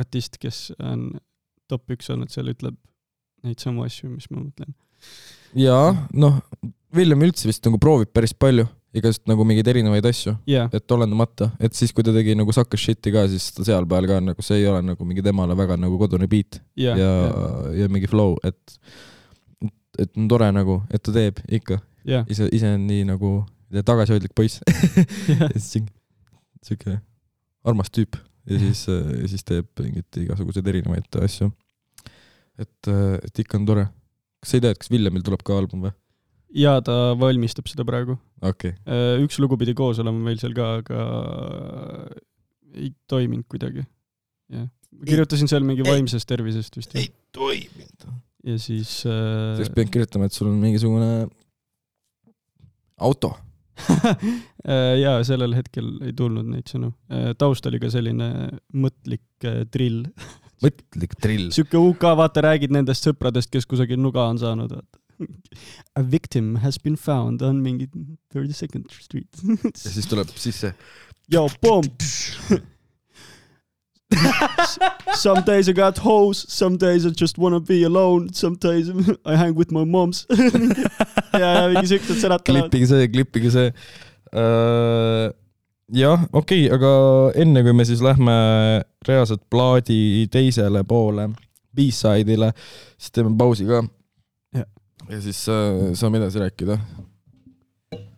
artist, kes on top 1 olnud, seal ütleb neid samu asju, mis ma mõtlen. Jaa, noh, Villem üldse vist nagu proovib päris palju, igast nagu mingeid erinevaid asju, et olendamata, et siis kui ta tegi nagu Sucker Shit'i ka, siis ta seal peal ka nagu see ei ole nagu mingi temale väga nagu kodune beat ja mingi flow, et on tore nagu, et ta teeb ikka. Ise on nii nagu tagasihoidlik poiss. Siuke armas tüüp ja siis teeb mingit igasuguseid erinevaid asju. Et ikka on tore. Kas sa ei tea, et kas Villemil tuleb ka album või? Ja ta valmistab seda praegu. Okay. Üks lugu pidi koos olema meil seal ka, aga ei toiminud kuidagi. Kirjutasin seal mingi vaimsest tervisest vist. Ei toiminud. Ja siis... Seks pean kirjutama, et sul on mingisugune auto. Ja sellel hetkel ei tulnud neid sõnu. Taust oli ka selline mõtlik drill. Mõtlik drill. Siuke UK, vaata, räägid nendest sõpradest, kes kusagil nuga on saanud, vaata. A victim has been found on mingi 32nd Street. Ja siis tuleb sisse. Yo, boom! Some days I got hoes, some days I just wanna be alone, some days I hang with my moms. ja mingi siuksed sõnad tulevad. Klippige see. Jah, okei, aga enne kui me siis lähme reaalselt plaadi teisele poole, B-side'ile, siis teeme pausi ka. Ja siis saame edasi rääkida.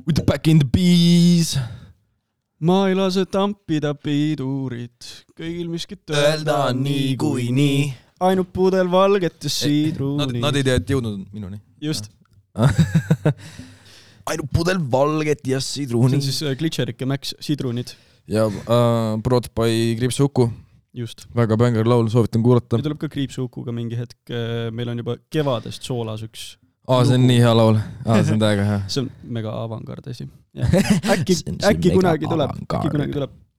With the back in the bees. ma ei lase tampida pidurit, kõigil miskit öelda nii kui nii. Ainult pudel valget ja siidruuni. Nad ei tea, et jõudnud minuni. Just. Ainult pudel valget ja siidruuni. See on siis Glitcherik ja Max siidruunid. Ja Brought by Kriipsuuku. Just. Väga bängar laul, soovitan kuulata. Ja tuleb ka Kriipsuukuga mingi hetk. Meil on juba kevadest soolas üks. See on nii hea laul. See on täiega hea. See on mega avangard asi. Äkki kunagi tuleb.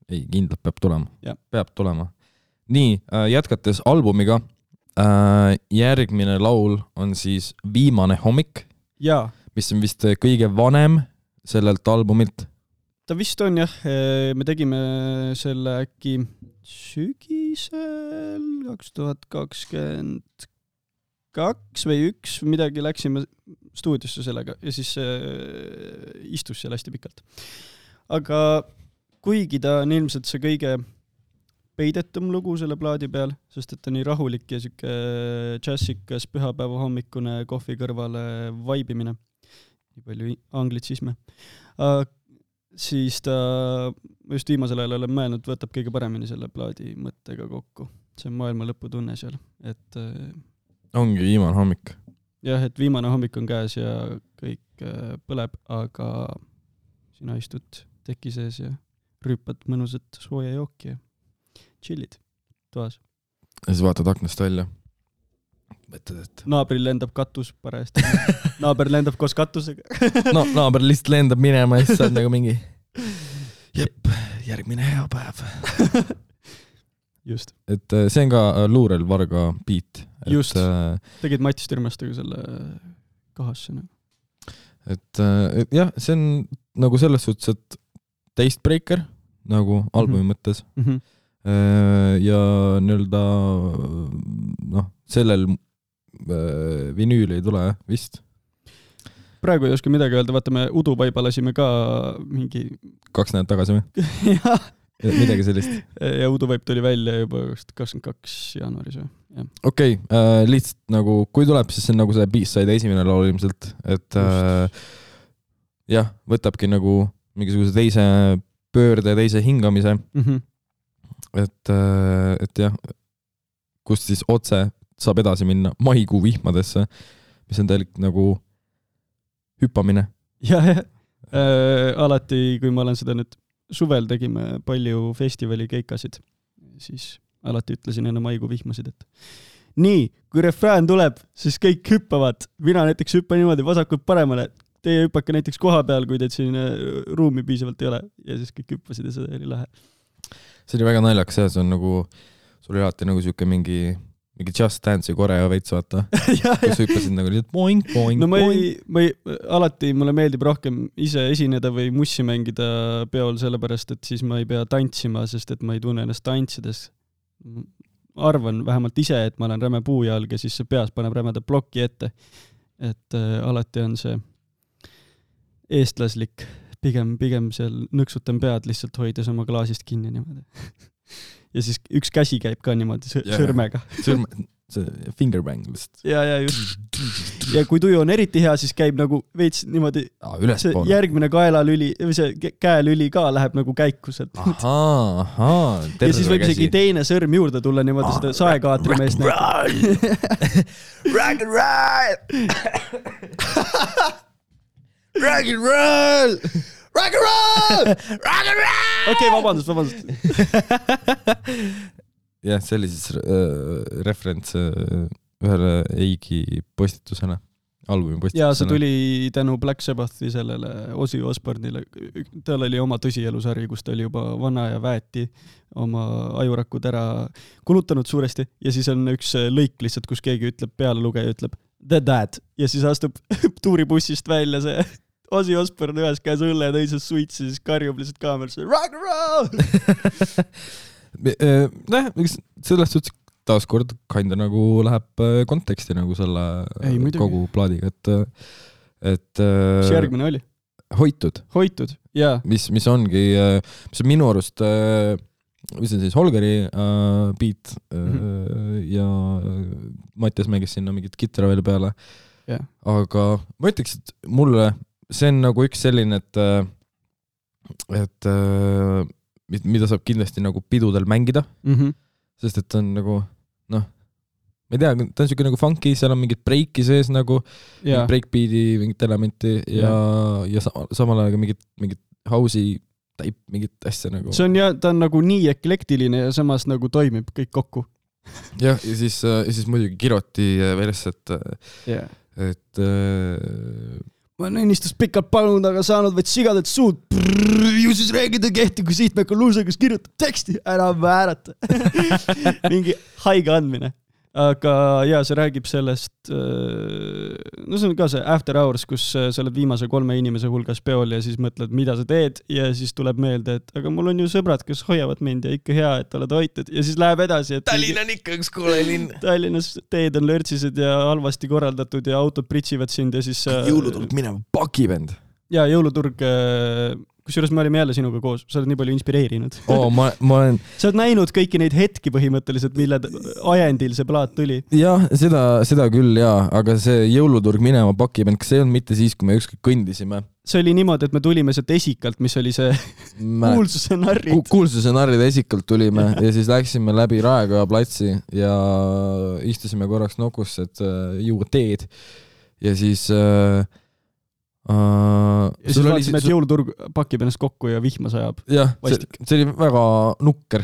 Ei, kindlalt peab tulema. Ja. Peab tulema. Nii, jätkates albumiga, järgmine laul on siis Viimane hommik, mis on vist kõige vanem sellelt albumilt. Ta vist on jah, me tegime selle äkki sügisel 2022 või 1 midagi, läksime stuudiosse sellega ja siis istus seal hästi pikalt. Aga kuigi ta on ilmselt see kõige peidetum lugu selle plaadi peal, sest et ta nii rahulik ja siuke džässikas pühapäeva hommikune kohvi kõrvale vaibimine. Nii palju anglitsisme. Siis ta just viimasel ajal olen mõelnud, võtab kõige paremini selle plaadi mõttega kokku. See on maailma lõputunne seal. Et, ongi viimane hommik. Jah, et viimane hommik on käes ja kõik põleb, aga sina istud teki sees ja rüüpad mõnusat sooja jooki ja chillid toas. Ja siis vaatad aknast välja. Mõtled, et... Naabril lendab katus parajasti. Naaber lendab koos katusega. No, naaber lihtsalt lendab minema ja siis saad nagu mingi jep, järgmine hea päev. Just. Et see on ka Luurel Varga beat. Just. Tegid Matis Türmestega selle kahasse. Et jah, see on nagu selles suhtes, et Tastebreaker nagu albumi mõttes. Ja nii-öelda sellel vinüül ei tule vist. Praegu ei oska midagi öelda, vaata me Uduvaiba lasime ka mingi 2 nädalad tagasi või? Jah. Midagi sellist. Ja Uduvaip tuli välja juba 22 jaanuaris või? Okei, lihtsalt nagu kui tuleb, siis see on nagu see B-side esimene laul ilmselt, et jah, võtabki nagu mingisuguse teise pöörde, teise hingamise. Et jah, kust siis otse saab edasi minna maikuu vihmadesse, mis on täielik nagu hüppamine. Jah, alati, kui ma olen seda nüüd suvel tegime palju festivali keikasid, siis alati ütlesin enne maikuu vihmasid, et nii, kui refrään tuleb, siis kõik hüppavad. Mina näiteks hüppan niimoodi vasakult paremale. Teie hüppake näiteks koha peal, kui teid siin ruumi piisavalt ei ole. Ja siis kõik hüppasid ja see oli lahe. See oli väga naljakas, see on nagu, sul oli alati nagu siuke mingi Just Dance'i koreo veits vaata, kus hüppasid nagu lihtsalt boing, boing, no alati mulle meeldib rohkem ise esineda või mussi mängida peol, sellepärast, et siis ma ei pea tantsima, sest et ma ei tunne ennast tantsides. Arvan vähemalt ise, et ma olen räme puujalg ja siis see peas paneb rämeda ploki ette. Et alati on see eestlaslik, pigem seal nõksutan pead lihtsalt hoides oma klaasist kinni niimoodi. Ja siis üks käsi käib ka niimoodi sõrmega. See fingerbang lihtsalt. Ja just. Ja kui tuju on eriti hea, siis käib nagu veits niimoodi see järgmine kaelalüli või see käelüli ka läheb nagu käikuselt. Ja siis võib isegi teine sõrm juurde tulla niimoodi seda saekaatri meest näitab. Rock and roll! Rock and roll! Rock and roll! Rock and roll! Okei, vabandust. Jah, see oli siis referents ühele Eigi postitusele, albumi postitusele. Ja see tuli tänu Black Sabbathi sellele Ozzy Osbourne'ile. Tal oli oma tõsielusari, kus ta oli juba vana ja väeti oma ajurakud ära kulutanud suuresti. Ja siis on üks lõik lihtsalt, kus keegi ütleb, pealelugeja ütleb The Dad. Ja siis astub tuuribussist välja see Ozzy Osbourne ühes käes õlle ja teises suits ja siis karjub lihtsalt kaamerasse rock and roll! Sellest suhtes taaskord kinda nagu läheb konteksti nagu selle kogu plaadiga, et mis järgmine oli? Hoitud, jaa. Mis ongi, mis on minu arust mis on siis Holgeri beat ja Mattias mängis sinna mingit kitara veel peale. Aga ma ütleks, et mulle see on nagu üks selline, et et mida saab kindlasti nagu pidudel mängida, sest et on nagu, noh, ma ei tea, ta on siuke nagu funky, seal on mingid breiki sees nagu, breakbeat'i mingit elementi ja samal ajal mingit house'i taip, mingit asja nagu. See on ta on nagu nii eklektiline ja samas nagu toimib kõik kokku. Jah, ja siis muidugi kiroti veres, et ma olen ennistust pikalt palunud, aga saanud vaid sigadet suud. Ju siis räägida kehti, kui sihtmekal luusa, kes kirjutab teksti, ära väärata. Mingi haige andmine. Aga see räägib sellest, no see on ka see After Hours, kus sa oled viimase 3 inimese hulgas peol ja siis mõtled, mida sa teed ja siis tuleb meelde, et aga mul on ju sõbrad, kes hoiavad mind ja ikka hea, et oled hoitud ja siis läheb edasi. Tallinn on ikka üks koole linn. Tallinnas teed on lörtsised ja halvasti korraldatud ja autod pritsivad sind ja siis... Jõuluturg minema pakivend. Ja jõuluturg... Kusjuures me olime jälle sinuga koos, sa oled nii palju inspireerinud. Ma olen... Sa oled näinud kõiki neid hetki põhimõtteliselt, mille ajendil see plaat tuli. Jah, seda küll, aga see jõuluturg minema pakivend, kas see on mitte siis, kui me ükskord kõndisime? See oli niimoodi, et me tulime sealt Esikalt, mis oli see kuulsuse narrid. Kuulsuse narride Esikalt tulime ja siis läksime läbi Raekoja platsi ja istusime korraks nokusse, et juua teed ja siis... ja siis vaatasime, et jõuluturg pakib ennast kokku ja vihma sajab. Jah, see oli väga nukker.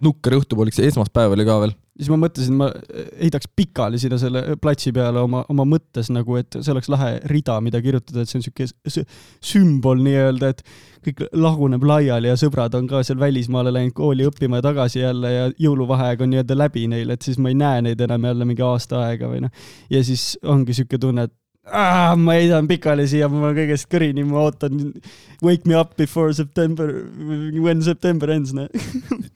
Nukker õhtupoolik, see esmaspäev oli ka veel. Siis ma mõtlesin, ma heidaks pikali sinna selle platsi peale oma mõttes nagu, et see oleks lahe rida, mida kirjutada, et see on siuke sümbol nii-öelda, et kõik laguneb laiali ja sõbrad on ka seal välismaale läinud kooli õppima ja tagasi jälle ja jõuluvaheaeg on nii-öelda läbi neil, et siis ma ei näe neid enam jälle mingi aasta aega või noh. Ja siis ongi siuke tunne, et ma heidan pikali siia, ma kõigest kõrini, ma ootan wake me up before September, when September ends.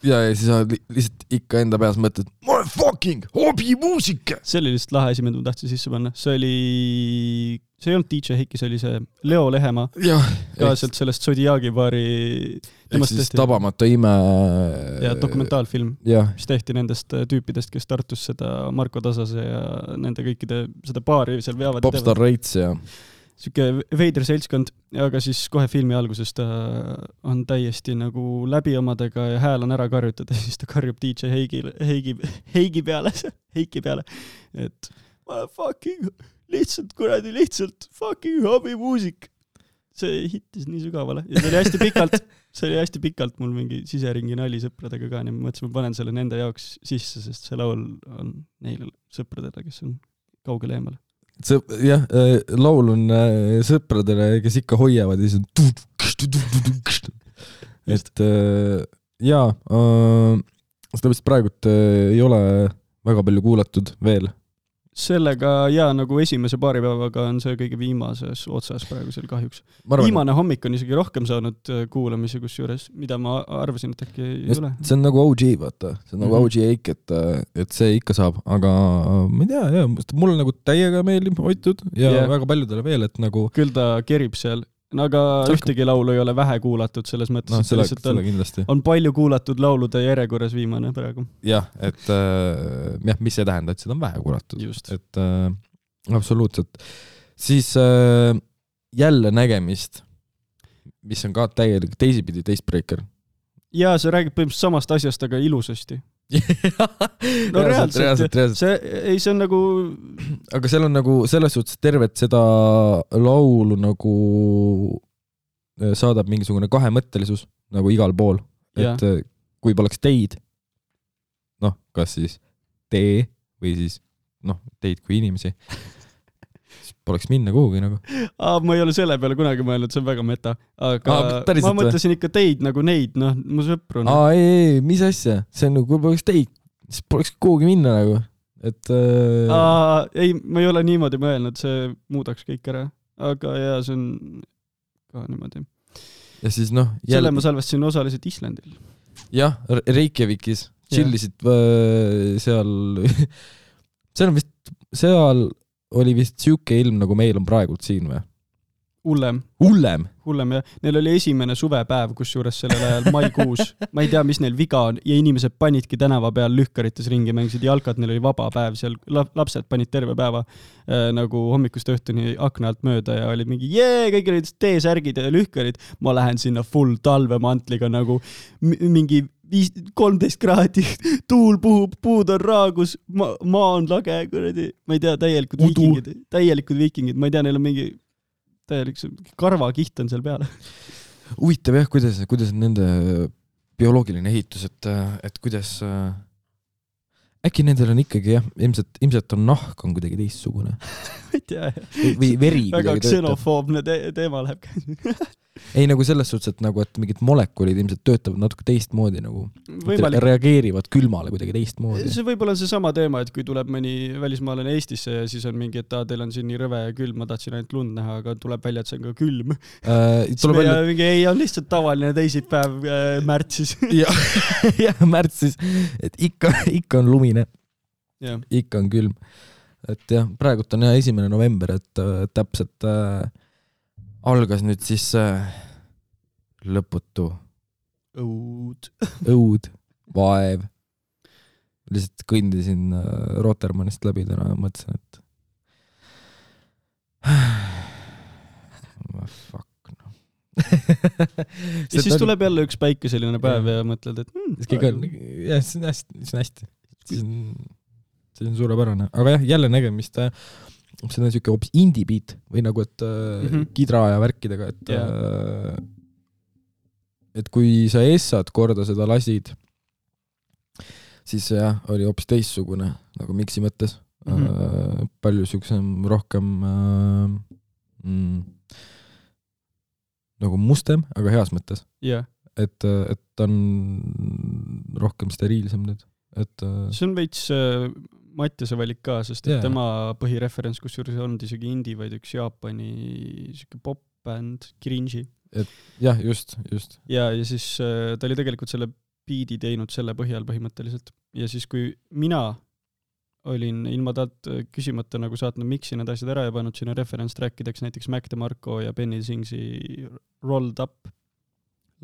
ja siis lihtsalt ikka enda peas mõtled, ma olen fucking hobimuusika. See oli lihtsalt lahe asi, mida ma tahtsin sisse panna. See ei olnud DJ Heiki, see oli see Leo Lehemaa. Ka sealt sellest Zodiaagi baari. Ehk siis Tabamata ime. Ja dokumentaalfilm, mis tehti nendest tüüpidest, kes Tartus seda Marko Tasase ja nende kõikide seda baari seal veavad. Popstar Reits ja... Siuke veider seltskond, aga siis kohe filmi alguses ta on täiesti nagu läbi omadega ja hääl on ära karjutada ja siis ta karjub DJ Heigi peale, et ma fucking lihtsalt fucking hobimuusik. See hittis nii sügavale ja see oli hästi pikalt mul mingi siseringi nali sõpradega ka, nii ma mõtlesin, ma panen selle nende jaoks sisse, sest see laul on neile sõpradele, kes on kaugele eemale. Jah, laul on sõpradele, kes ikka hoiavad ja siis on et sellepärast praegult ei ole väga palju kuulatud veel. Sellega nagu esimese paari päevaga on see kõige viimases otsas praegusel kahjuks. Viimane hommik on isegi rohkem saanud kuulamisi kusjuures, mida ma arvasin, et äkki ei ole. See on nagu OG, vaata. See on nagu OG Eik, et see ikka saab, aga ma ei tea, mulle nagu täiega meeldib hoitud ja väga paljudele veel, et nagu... Küll ta kerib seal. Aga ühtegi laulu ei ole vähe kuulatud selles mõttes, et on palju kuulatud laulude järjekorras viimane praegu. Jah, et mis see tähendab, et seda on vähe kuulatud. Just. Et absoluutselt. Siis jälle nägemist, mis on ka täielik teisipidi teistbreaker. Ja see räägib põhimõtteliselt samast asjast, aga ilusasti. No reaalselt. See on nagu... Aga seal on nagu selles suhtes tervet seda laulu nagu saadab mingisugune kahemõttelisus nagu igal pool. Et kui poleks teid, kas siis tee või siis teid kui inimesi, siis poleks minna kuhugi nagu. Ma ei ole selle peale kunagi mõelnud, see on väga meta. Aga ma mõtlesin ikka teid nagu neid, mu sõpru. Ei, mis asja? See on nagu, kui poleks teid, siis poleks kuhugi minna nagu. Et... ei, ma ei ole niimoodi mõelnud, see muudaks kõik ära. Aga see on ka niimoodi. Ja siis selle ma salvestasin osaliselt Islandil. Jah, Reykjavikis. Chillisid seal... seal oli vist siuke ilm, nagu meil on praegult siin või? Hullem? Ja neil oli esimene suvepäev, kus juures sellel ajal maikuus. Ma ei tea, mis neil viga on ja inimesed panidki tänava peal lühkarites ringi, mängisid jalkat, neil oli vaba päev seal, lapsed panid terve päeva nagu hommikust õhtuni akna alt mööda ja oli mingi kõigil olid T-särgid ja lühkarid. Ma lähen sinna full talvemantliga nagu mingi 13 kraadi, tuul puhub, puud on raagus, maa on lage, kuradi. Ma ei tea, täielikud viikingid, ma ei tea, neil on mingi täielik karvakiht on seal peale. Huvitav jah, kuidas on nende bioloogiline ehitus, et kuidas äkki nendel on ikkagi jah, ilmselt on nahk on kuidagi teistsugune. Ma ei tea. Või veri väga ksenofoobne teema läheb. Ei nagu selles suhtes, et nagu, et mingid molekulid ilmselt töötavad natuke teistmoodi nagu. Reageerivad külmale kuidagi teistmoodi. See võib-olla on see sama teema, et kui tuleb mõni välismaalane Eestisse ja siis on mingi, et teil on siin nii rõve ja külm, ma tahtsin ainult lund näha, aga tuleb välja, et see on ka külm. Ei on lihtsalt tavaline teisipäev märtsis. Jah, märtsis. Et ikka on lumine. Ikka on külm. Et jah, praegult on 1. november, et täpselt algas nüüd siis lõputu õud, vaev. Lihtsalt kõndisin Rotermannist läbi täna ja mõtlesin, et fuck no. Ja siis tuleb jälle üks päikeseline päev ja mõtled, et jah, see on hästi. See on suurepärane. Aga jah, jälle nägemist see on siuke hoopis indie-beat või nagu, et kidra ja värkidega, et kui sa essad korda seda lasid, siis jah, oli hoopis teissugune nagu miksi mõttes. Palju siuksem rohkem nagu mustem, aga heas mõttes. Et on rohkem steriilsem nüüd. See on veits Mattiase valik ka, sest tema põhireferents, kus juures on isegi indie, vaid üks Jaapani pop-band, Cringy. Jah, just. Ja siis ta oli tegelikult selle biidi teinud selle põhjal põhimõtteliselt. Ja siis kui mina olin ilma talt küsimata nagu saatnud miksi need asjad ära ja pannud sinna reference-trackideks näiteks Mac DeMarco ja Benny Singsi Rolled Up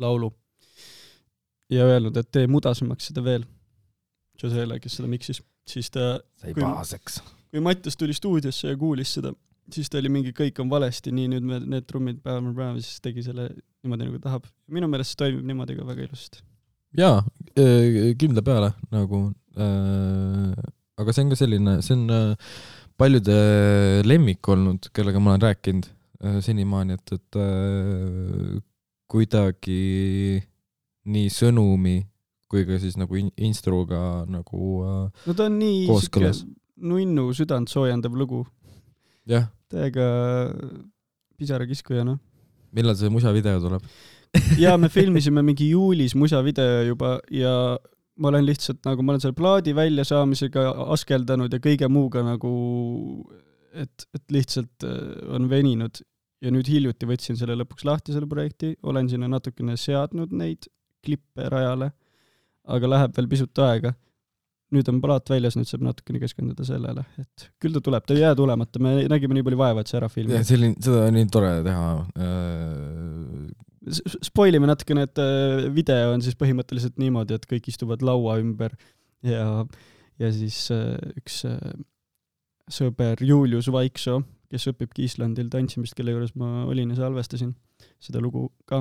laulu ja öelnud, et tee mudasemaks seda veel. Josele, kes seda miksis. Siis ta, kui Mattias tuli stuudiosse ja kuulis seda, siis ta oli mingi kõik on valesti, nii nüüd need trummid päev, siis tegi selle niimoodi nagu tahab. Minu meelest see toimib niimoodi ka väga ilusasti. Jaa, kindla peale nagu, aga see on ka selline, see on paljude lemmik olnud, kellega ma olen rääkinud senimaani, et kuidagi nii sõnumi kui ka siis nagu instruga nagu no ta on nii nunnu südant soojendav lugu. Jah. Täiega pisarakiskuja, noh. Millal see musavideo tuleb? Ja me filmisime mingi juulis musavideo juba ja ma olen lihtsalt nagu, ma olen selle plaadi välja saamisega askeldanud ja kõige muuga nagu, et lihtsalt on veninud ja nüüd hiljuti võtsin selle lõpuks lahti selle projekti, olen sinna natukene seadnud neid klippe rajale, aga läheb veel pisut aega. Nüüd on plaat väljas, nüüd saab natukene keskenduda sellele, et küll ta tuleb, ta ei jää tulemata, me nägime nii palju vaeva, et see ära filmi. Ja seda on nii tore teha. Spoilime natukene, et video on siis põhimõtteliselt niimoodi, et kõik istuvad laua ümber ja siis üks sõber Julius Vaikso, kes õpibki Islandil tantsimist, kelle juures ma olin ja salvestasin seda lugu ka,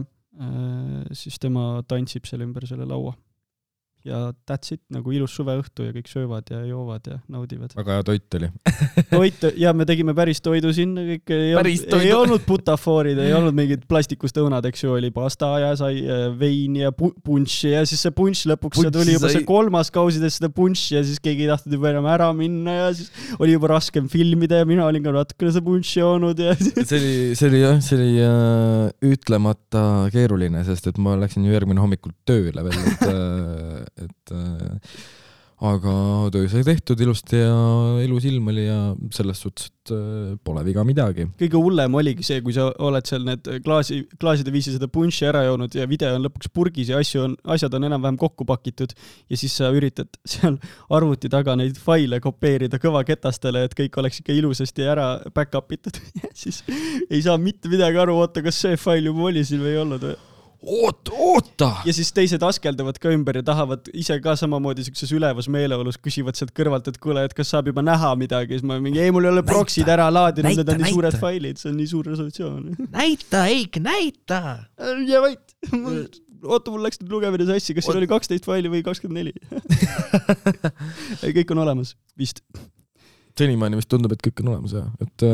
siis tema tantsib selle ümber selle laua. Ja that's it, nagu ilus suveõhtu ja kõik söövad ja joovad ja naudivad. Väga hea toit oli. Toit, ja me tegime päris toidu sinna, kõik ei olnud butafoorid, ei olnud mingid plastikust õunad, eks ju, oli pasta ja sai vein ja punši ja siis see punš lõpuks tuli juba see 3. kausides seda punši ja siis keegi ei tahtnud juba enam ära minna ja siis oli juba raskem filmida ja mina olin ka natukene see punši joonud ja see oli ütlemata keeruline, sest et ma läksin ju järgmine hommikul tööle veel, et aga töö sai tehtud ilusti ja ilus ilm oli ja selles suhtes, et pole viga midagi. Kõige hullem oligi see, kui sa oled seal need klaaside viisi seda punši ära joonud ja video on lõpuks purgis ja asjad on enam-vähem kokku pakitud ja siis sa üritad seal arvuti taga neid faile kopeerida kõvaketastele, et kõik oleks ikka ilusasti ära back-up itud. Siis ei saa mitte midagi aru, oota, kas see fail juba oli siin või ei olnud või? Oota! Ja siis teised askeldavad ka ümber ja tahavad ise ka samamoodi sellises ülevas meeleolus, küsivad sealt kõrvalt, et kuule, et kas saab juba näha midagi. Siis ma mingi, ei, mul ei ole proksid ära laadinud, need on nii suured failid, see on nii suur resolutsioon. Näita, Eik, näita! Ja vait, oota, mul läks nüüd lugemine sassi, kas siin oli 12 faili või 24? Kõik on olemas, vist. Senimaani vist tundub, et kõik on olemas, jah. Et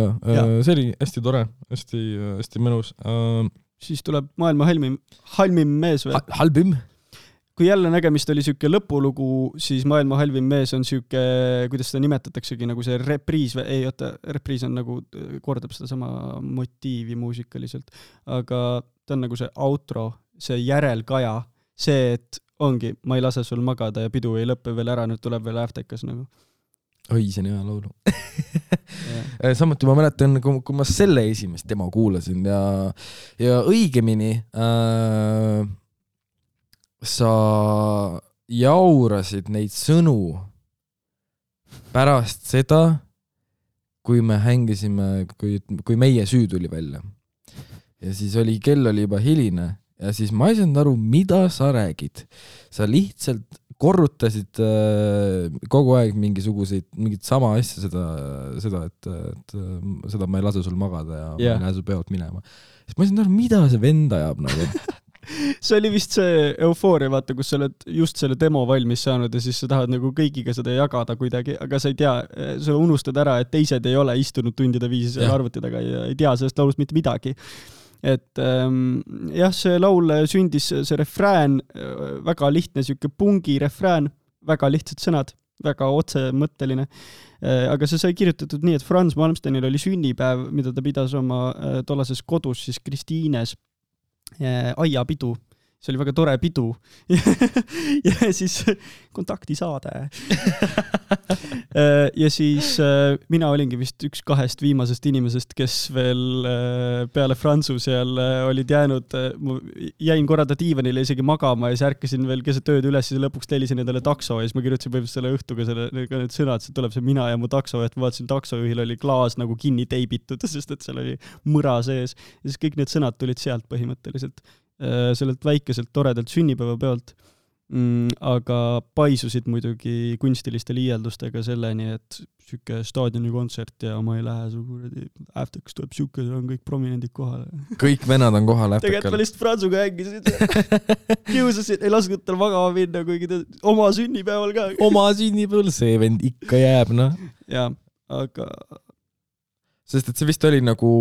see oli hästi tore, hästi mõnus. Siis tuleb maailma halvim mees või? Halvim? Kui jälle nägemist oli siuke lõpulugu, siis maailma halvim mees on siuke, kuidas seda nimetataksegi, nagu see repriis või ei, oota, repriis on nagu, kordab seda sama motiivi muusikaliselt, aga ta on nagu see outro, see järelkaja, see, et ongi, ma ei lase sul magada ja pidu ei lõppe veel ära, nüüd tuleb veel äftekas nagu. Oi, see on hea laulu. Samuti ma mäletan, kui ma selle esimest demo kuulasin ja õigemini sa jaurasid neid sõnu pärast seda, kui me hängisime, kui meie süü tuli välja. Ja siis kell oli juba hiline ja siis ma ei saanud aru, mida sa räägid. Sa lihtsalt korrutasid kogu aeg mingit sama asja seda, et seda ma ei lase sul magada ja ma ei lähe sul pealt minema. Siis ma ei saanud aru, mida see vend ajab nagu. See oli vist see eufooria, vaata, kus sa oled just selle demo valmis saanud ja siis sa tahad nagu kõigiga seda jagada kuidagi, aga sa ei tea, sa unustad ära, et teised ei ole istunud tundide viisi seal arvuti taga ja ei tea sellest laulust mitte midagi. Et jah, see laul sündis, see refrään, väga lihtne siuke pungi refrään, väga lihtsad sõnad, väga otsemõtteline, aga see sai kirjutatud nii, et Frans Malmstenil oli sünnipäev, mida ta pidas oma tollases kodus siis Kristiines aiapidu. See oli väga tore pidu. Ja siis kontaktisaade. Ja siis mina olingi vist üks kahest viimasest inimesest, kes veel peale Fransu seal olid jäänud, jäin korrada diivanile isegi magama ja siis ärkasin veel keset tööd üles ja lõpuks tellisin endale takso ja siis ma kirjutasin põhimõtteliselt selle õhtuga need sõnad, see tuleb see mina ja mu takso, et ma vaatasin taksojuhil oli klaas nagu kinni teibitud, sest et seal oli mõra sees ja siis kõik need sõnad tulid sealt põhimõtteliselt sellelt väikeselt toredalt sünnipäevapeolt, aga paisusid muidugi kunstiliste liialdustega selleni, et siuke staadioni kontsert ja ma ei lähe su äfteks tuleb siuke, on kõik prominendid kohale. Kõik vennad on kohal äftekal. Tegelikult ma lihtsalt Fransuga hängisin. Kiusasin, ei lasknud tal magama minna, kuigi ta oma sünnipäeval ka. Oma sünnipäeval, see vend ikka jääb, noh. Ja, aga... Sest et see vist oli nagu...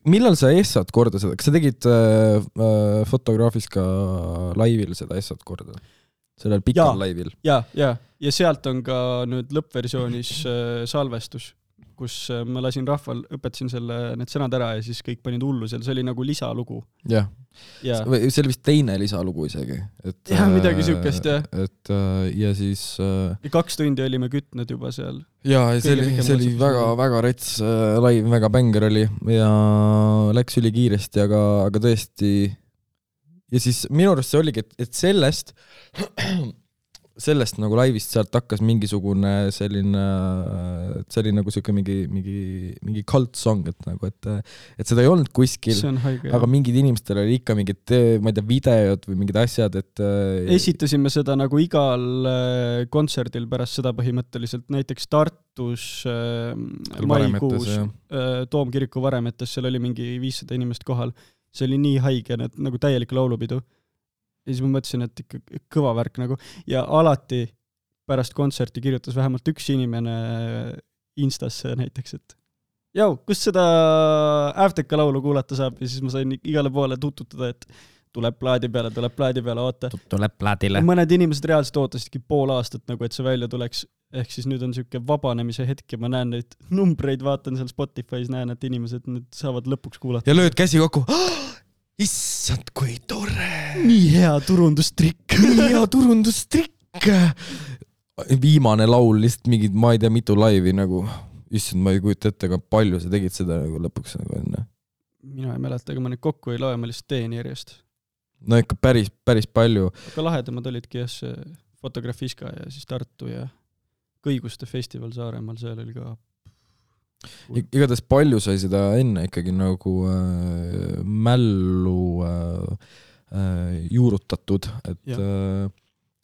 Millal sa essad korda seda? Kas sa tegid fotograafis ka laivil seda essad korda? Sellel pikal laivil? Ja sealt on ka nüüd lõppversioonis salvestus, kus ma lasin rahval, õpetasin need sõnad ära ja siis kõik panid hullu seal. See oli nagu lisalugu. Jah. See oli vist teine lisalugu isegi. Ja, midagi siukest, jah. Ja siis... 2 tundi olime kütnud juba seal. Ja, see oli väga rets laiv, väga bänger oli ja läks üli kiiresti, aga tõesti... Ja siis minu arust see oligi, et sellest nagu laivist sealt hakkas mingisugune selline nagu siuke mingi cult song, et seda ei olnud kuskil, aga mingid inimestel oli ikka mingid, ma ei tea, videod või mingid asjad, et... Esitasime seda nagu igal kontserdil pärast seda põhimõtteliselt, näiteks Tartus maikuus Toomkiriku varemetes, seal oli mingi 500 inimest kohal, see oli nii haige, nagu täielik laulupidu. Ja siis ma mõtlesin, et ikka kõva värk nagu. Ja alati pärast kontserti kirjutas vähemalt üks inimene Instasse näiteks, et jau, kus seda äfteka laulu kuulata saab? Ja siis ma sain igale poole tututada, et tuleb plaadi peale, oota. Tuleb plaadile. Mõned inimesed reaalselt ootasidki pool aastat, nagu et see välja tuleks. Ehk siis nüüd on siuke vabanemise hetk ja ma näen neid numbreid, vaatan seal Spotify's, näen, et inimesed nüüd saavad lõpuks kuulata. Ja lööd käsi kokku. Issand, kui tore! Nii hea turundustrikk. viimane laul lihtsalt mingid, ma ei tea, mitu laivi nagu, issand, ma ei kujuta ette, aga palju sa tegid seda nagu lõpuks nagu enne? Mina ei mäleta, aga ma neid kokku ei loe, ma lihtsalt teen järjest. No ikka päris palju. Aga lahedamad olidki jah, see Fotografiska ja siis Tartu ja Kõiguste festival Saaremaal, seal oli ka igatahes palju sai seda enne ikkagi nagu mällu juurutatud, et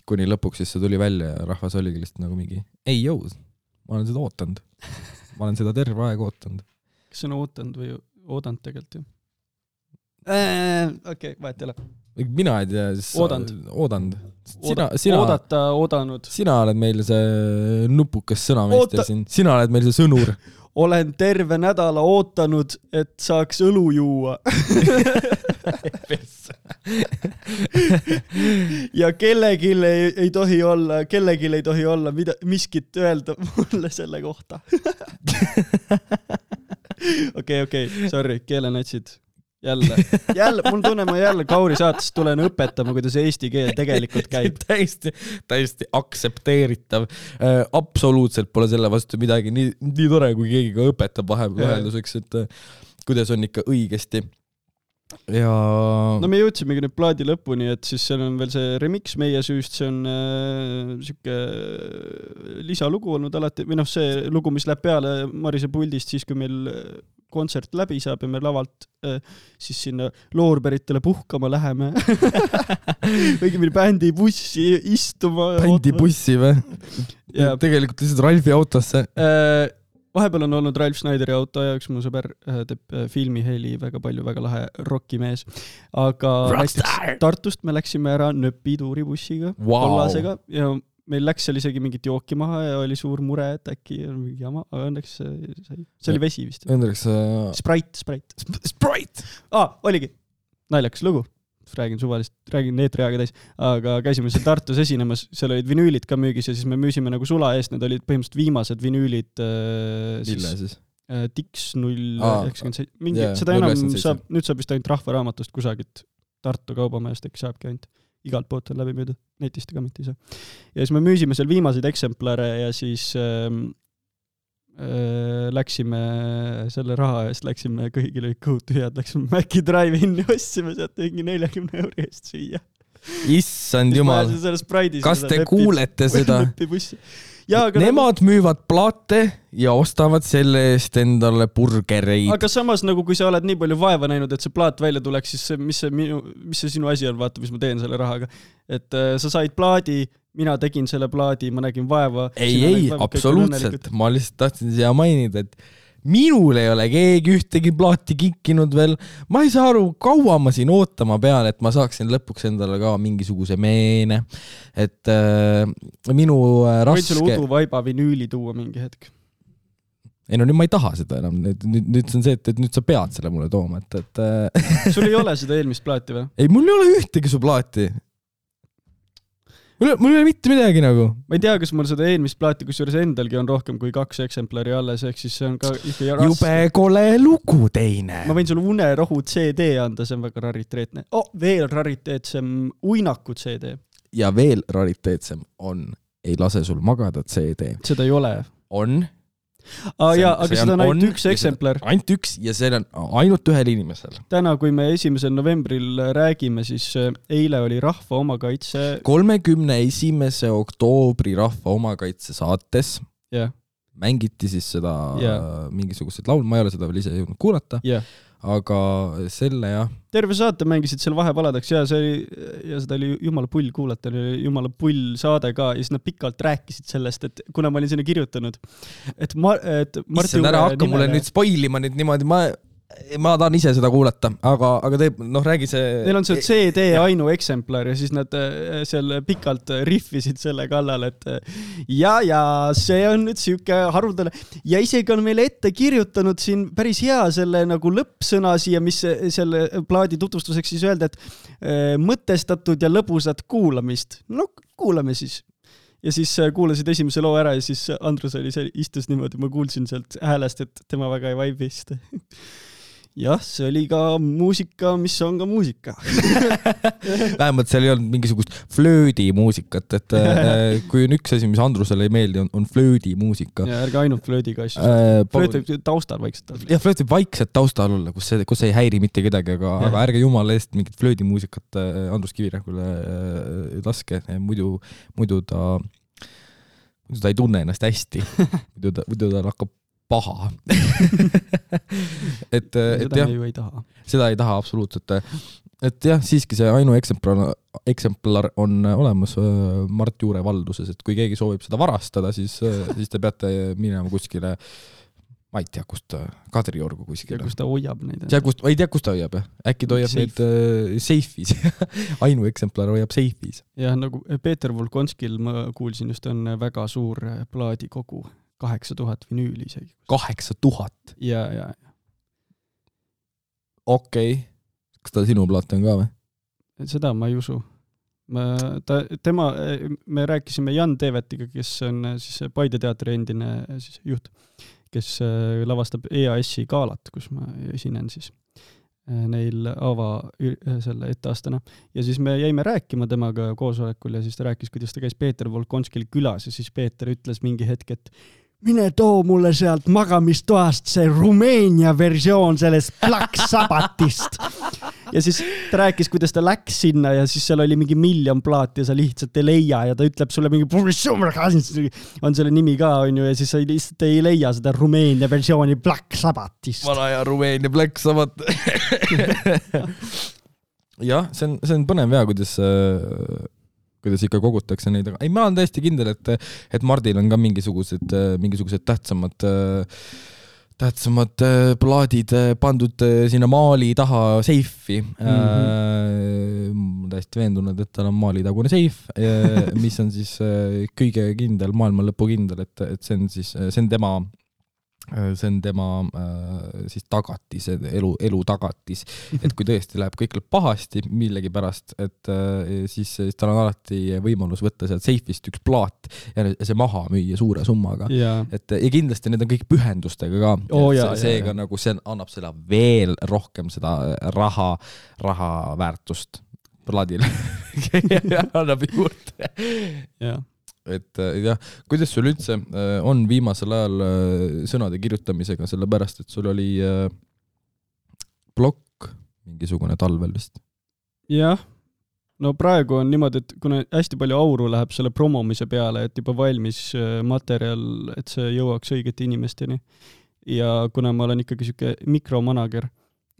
kuni lõpuks siis see tuli välja ja rahvas oligi lihtsalt nagu mingi ei jõu, ma olen seda ootanud. Ma olen seda terve aeg ootanud. Kas see on ootanud või oodanud tegelikult ju? Okei, vahet ei ole. Mina ei tea, siis oodanud. Oodanud. Sina oled meil see nupukas sõnameister siin. Sina oled meil see sõnur. Olen terve nädala ootanud, et saaks õlu juua. Ja kellelgi ei tohi olla miskit öelda mulle selle kohta. Okei, sorry, keelenatsid. Jälle, mul tunne, ma jälle Kauri saatest tulen õpetama, kuidas eesti keel tegelikult käib. Täiesti aksepteeritav. Absoluutselt pole selle vastu midagi. Nii tore, kui keegi ka õpetab vahelduseks, et kuidas on ikka õigesti. Ja... No me jõudsimegi nüüd plaadi lõpuni, et siis seal on veel see remix meie süüst, see on siuke lisalugu olnud alati, või see lugu, mis läheb peale Marise puldist, siis kui meil kontsert läbi saab ja me lavalt siis sinna loorberitele puhkama läheme. Õigemini bändi bussi istuma. Bändi bussi või? Tegelikult lihtsalt Ralfi autosse. Vahepeal on olnud Ralf Schneideri auto ja üks mu sõber teeb filmiheli väga palju, väga lahe rockimees. Aga Tartust me läksime ära Nöpi tuuribussiga, kollasega ja meil läks seal isegi mingit jooki maha ja oli suur mure, et äkki on mingi jama, aga õnneks see oli vesi vist. Õnneks... Sprite! Oligi. Naljakas lugu. Räägin neetriaga täis. Aga käisime seal Tartus esinemas, seal olid vinüülid ka müügis ja siis me müüsime nagu sula eest, need olid põhimõtteliselt viimased vinüülid. Mille siis? Tix 097. Seda enam saab, nüüd saab vist ainult Rahvaraamatust kusagilt Tartu kaubamajast, äkki saabki ainult. Igalt poolt on läbi müüdud, netist ka mitte ei saa. Ja siis me müüsime seal viimaseid eksemplare ja siis läksime selle raha eest, läksime kõigile kõhutühjad, läksime Maci Drive-inni, ossime sealt mingi 40 € eest süüa. Issand jumal, kas te kuulete seda? Nemad müüvad plaate ja ostavad selle eest endale burgereid. Aga samas, nagu kui sa oled nii palju vaeva näinud, et see plaat välja tuleks, siis mis see sinu asi on, vaata, mis ma teen selle rahaga. Et sa said plaadi, mina tegin selle plaadi, ma nägin vaeva. Ei, absoluutselt. Ma lihtsalt tahtsin siia mainida, et minul ei ole keegi ühtegi plaati kikkinud veel. Ma ei saa aru, kaua ma siin ootama pean, et ma saaksin lõpuks endale ka mingisuguse meene. Et minu raske... Võid sulle Udu Vaiba vinüüli tuua mingi hetk? Ei no nüüd ma ei taha seda enam. Nüüd on see, et nüüd sa pead selle mulle tooma. Sul ei ole seda eelmist plaati või? Ei, mul ei ole ühtegi su plaati. Mul ei ole mitte midagi nagu. Ma ei tea, kas mul seda eelmist plaati, kus juures endalgi on rohkem kui 2 eksemplari alles, ehk siis see on ka ikka raske. Jube kole lugu teine. Ma võin sulle Unerohu CD anda, see on väga rariteetne. Veel rariteetsem Uinaku CD. Ja veel rariteetsem on Ei lase sul magada CD. Seda ei ole. On. Aga seda on ainult üks eksemplar. Ainult üks ja see on ainult ühel inimesel. Täna, kui me 1. novembril räägime, siis eile oli Rahva omakaitse... 31. oktoobri Rahva omakaitse saates mängiti siis seda mingisuguseid laul, ma ei ole seda veel ise jõudnud kuulata, aga selle terve saate mängisid seal vahepaladaks ja seda oli jumala pull kuulata, oli jumala pull saade ka ja siis nad pikalt rääkisid sellest, et kuna ma olin sinna kirjutanud, et Marti Juure ära hakka mulle nüüd spoilima nüüd niimoodi, ma tahan ise seda kuulata, aga teeb, räägi see... Neil on see CD ainu eksemplar ja siis nad seal pikalt riffisid selle kallal, et ja see on nüüd siuke haruldane ja isegi on meile ette kirjutanud siin päris hea selle nagu lõppsõna siia, mis selle plaadi tutvustuseks siis öelda, et mõtestatud ja lõbusat kuulamist. No kuulame siis. Ja siis kuulasid esimese loo ära ja siis Andrus oli istus niimoodi, ma kuulsin sealt häälest, et tema väga ei vaibist. jah, see oli ka muusika, mis on ka muusika. Vähemalt seal ei olnud mingisugust flöödi muusikat, et kui on üks asi, mis Andrusele ei meeldi, on flöödi muusika. Ja ärge ainult flöödiga asju. Flööt võib taustal vaikselt olla. Ja flööt võib vaikselt taustal olla, kus ei häiri mitte kedagi, aga ärge jumala eest mingit flöödi muusikat Andrus Kivirähkule laske, muidu ta ei tunne ennast hästi. Muidu ta hakkab paha. Seda me ju ei taha. Seda ei taha absoluutselt. Et jah, siiski see Ainu eksemplar on olemas Mart Juure valduses, et kui keegi soovib seda varastada, siis te peate minema kuskile, ma ei tea, kust Kadriorgu kuskile. Ja kus ta hoiab neid. Ei tea, kus ta hoiab. Äkki ta hoiab neid seifis. Ainu eksemplar hoiab seifis. Ja nagu Peeter Volkonskil, ma kuulsin just, on väga suur plaadikogu. 8000 vinüüli isegi. 8000? Ja. Okei. Kas ta sinu plaat on ka või? Seda ma ei usu. Me rääkisime Jan Teevetiga, kes on siis Paide teatri endine siis juht, kes lavastab EAS-i gaalat, kus ma esinen siis neil selle etteastana. Ja siis me jäime rääkima temaga koosolekul ja siis ta rääkis, kuidas ta käis Peeter Volkonskil külas ja siis Peeter ütles mingi hetk, et mine too mulle sealt magamistoast see Rumeenia versioon sellest Black Sabbathist. Ja siis ta rääkis, kuidas ta läks sinna ja siis seal oli mingi 1 miljon plaati ja sa lihtsalt ei leia ja ta ütleb sulle mingi on selle nimi ka, on ju, ja siis sa lihtsalt ei leia seda Rumeenia versiooni Black Sabbathist. Vana ja Rumeenia Black Sabbath. Jah, see on põnev ja, kuidas ikka kogutakse neid, aga ei, ma olen täiesti kindel, et Mardil on ka mingisugused tähtsamad plaadid pandud sinna maali taha seifi. Ma täiesti veendunud, et tal on maalitagune seif, mis on siis kõige kindel, maailma lõpu kindel, et see on tema siis tagatis, elu tagatis, et kui tõesti läheb kõik pahasti millegi pärast, et siis tal on alati võimalus võtta sealt seifist üks plaat ja see maha müüa suure summaga. Ja kindlasti need on kõik pühendustega ka. Seega nagu see annab seda veel rohkem seda raha väärtust plaadile. Annab juurde. Jah. Et jah, kuidas sul üldse on viimasel ajal sõnade kirjutamisega, sellepärast, et sul oli blokk mingisugune talvel vist? Jah, no praegu on niimoodi, et kuna hästi palju auru läheb selle promomise peale, et juba valmis materjal, et see jõuaks õigete inimesteni. Ja kuna ma olen ikkagi siuke mikromanager,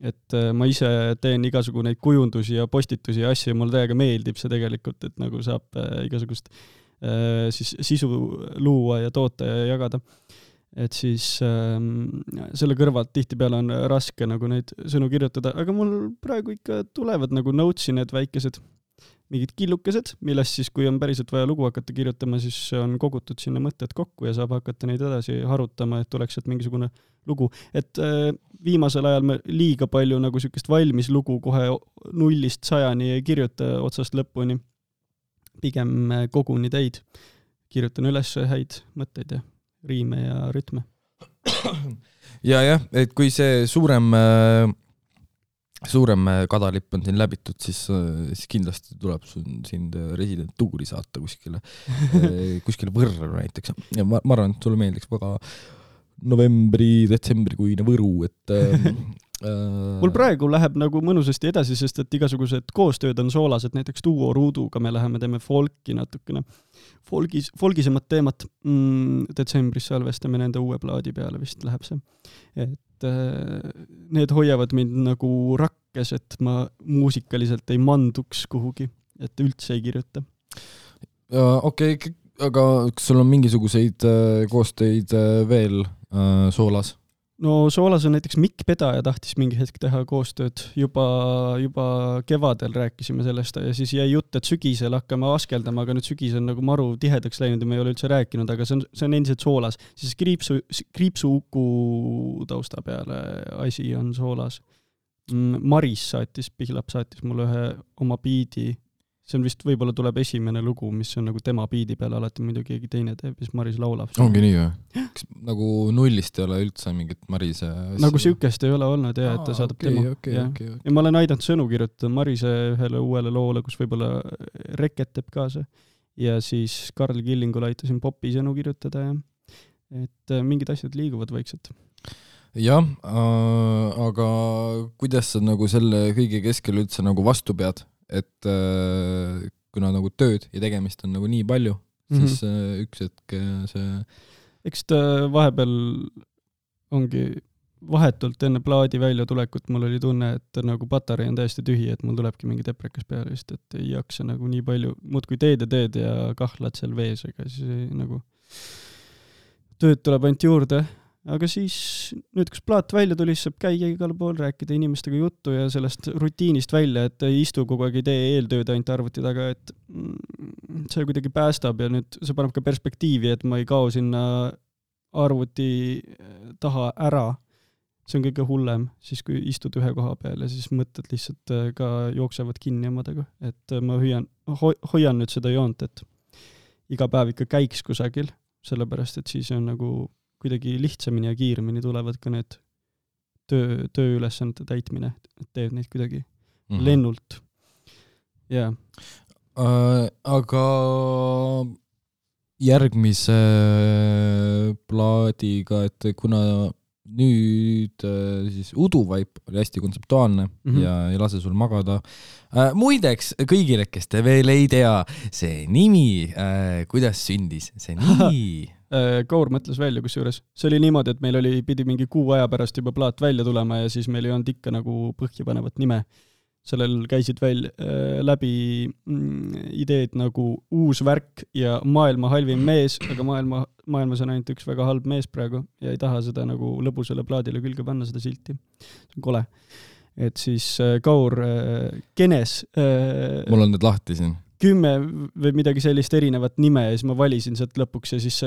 et ma ise teen igasugu neid kujundusi ja postitusi ja asju ja mulle täiega meeldib see tegelikult, et nagu saab igasugust siis sisu luua ja toota ja jagada. Et siis selle kõrvalt tihtipeale on raske nagu neid sõnu kirjutada, aga mul praegu ikka tulevad nagu notesi need väikesed mingid killukesed, millest siis, kui on päriselt vaja lugu hakata kirjutama, siis on kogutud sinna mõtted kokku ja saab hakata neid edasi harutama, et tuleks sealt mingisugune lugu. Et viimasel ajal me liiga palju nagu sükest valmis lugu kohe 0-100 ei kirjuta otsast lõpuni. Pigem koguni teid. Kirjutan üles häid mõtteid ja riime ja rütme. Ja, et kui see suurem kadalipp on siin läbitud, siis kindlasti tuleb sind residentuuri saata kuskile Võrru näiteks. Ja ma arvan, et sulle meeldiks väga novembri-detsembrikuine Võru, et mul praegu läheb nagu mõnusasti edasi, sest et igasugused koostööd on soolased, näiteks Duo Ruuduga me teeme folki natukene, folgisemat teemat. Detsembris salvestame nende uue plaadi peale, vist läheb see. Et need hoiavad mind nagu rakkes, et ma muusikaliselt ei manduks kuhugi, et üldse ei kirjuta. Okei, aga kas sul on mingisuguseid koostöid veel soolas? No soolas on näiteks Mikk Pedaja tahtis mingi hetk teha koostööd. Juba kevadel rääkisime sellest ja siis jäi jutt, et sügisel hakkame askeldama, aga nüüd sügis on nagu maru tihedaks läinud ja me ei ole üldse rääkinud, aga see on endiselt soolas. Siis kriipsu uku tausta peale asi on soolas. Maris Pihlap saatis mulle ühe oma biidi see on vist, võib-olla tuleb esimene lugu, mis on nagu tema biidi peal, alati muidu keegi teine teeb, siis Maris laulab. Ongi nii või? Kas nagu nullist ei ole üldse mingit Marise asja? Nagu sükest ei ole olnud, jah, et ta saadab tema. Okay. Ja ma olen aidanud sõnu kirjutada Marise ühele uuele loole, kus võib-olla Reket teeb kaasa. Ja siis Karl Killingul aitasin popi sõnu kirjutada, ja et mingid asjad liiguvad vaikselt. Jah, aga kuidas sa nagu selle kõige keskel üldse nagu vastu pead? Et kuna nagu tööd ja tegemist on nagu nii palju, siis üks hetk see... Eks ta vahepeal ongi vahetult enne plaadi välja tulekut, mul oli tunne, et nagu patarei on täiesti tühi, et mul tulebki mingi deprekas peale just, et ei jaksa nagu nii palju, muud kui teed ja kahlad seal vees, ega siis nagu tööd tuleb ainult juurde. Aga siis nüüd, kus plaat välja tuli, saab käia igal pool, rääkida inimestega juttu ja sellest rutiinist välja, et ei istu kogu aeg, ei tee eeltööd ainult arvuti taga, et see kuidagi päästab ja nüüd see paneb ka perspektiivi, et ma ei kao sinna arvuti taha ära. See on kõige hullem, siis kui istud ühe koha peal ja siis mõtted lihtsalt ka jooksevad kinni omadega. Et ma hoian nüüd seda joont, et iga päev ikka käiks kusagil, sellepärast, et siis on nagu kuidagi lihtsamini ja kiiremini tulevad ka need tööülesannete täitmine, et teed neid kuidagi lennult. Yeah. Aga järgmise plaadiga, et kuna nüüd siis Uduvaip oli hästi kontseptuaalne ja ei lase sul magada. Muideks, kõigile, kes te veel ei tea, see nimi, kuidas sündis see nimi? Kaur mõtles välja kusjuures. See oli niimoodi, et meil pidi mingi kuu aja pärast juba plaat välja tulema ja siis meil ei olnud ikka nagu põhjapanevat nime. Sellel käisid läbi ideed nagu uus värk ja maailma halvim mees, aga maailmas on ainult üks väga halb mees praegu ja ei taha seda nagu lõbusele plaadile külge panna seda silti. See on kole. Et siis Kaur kenes... Mul on need lahti siin. 10 või midagi sellist erinevat nime ja siis ma valisin sealt lõpuks ja siis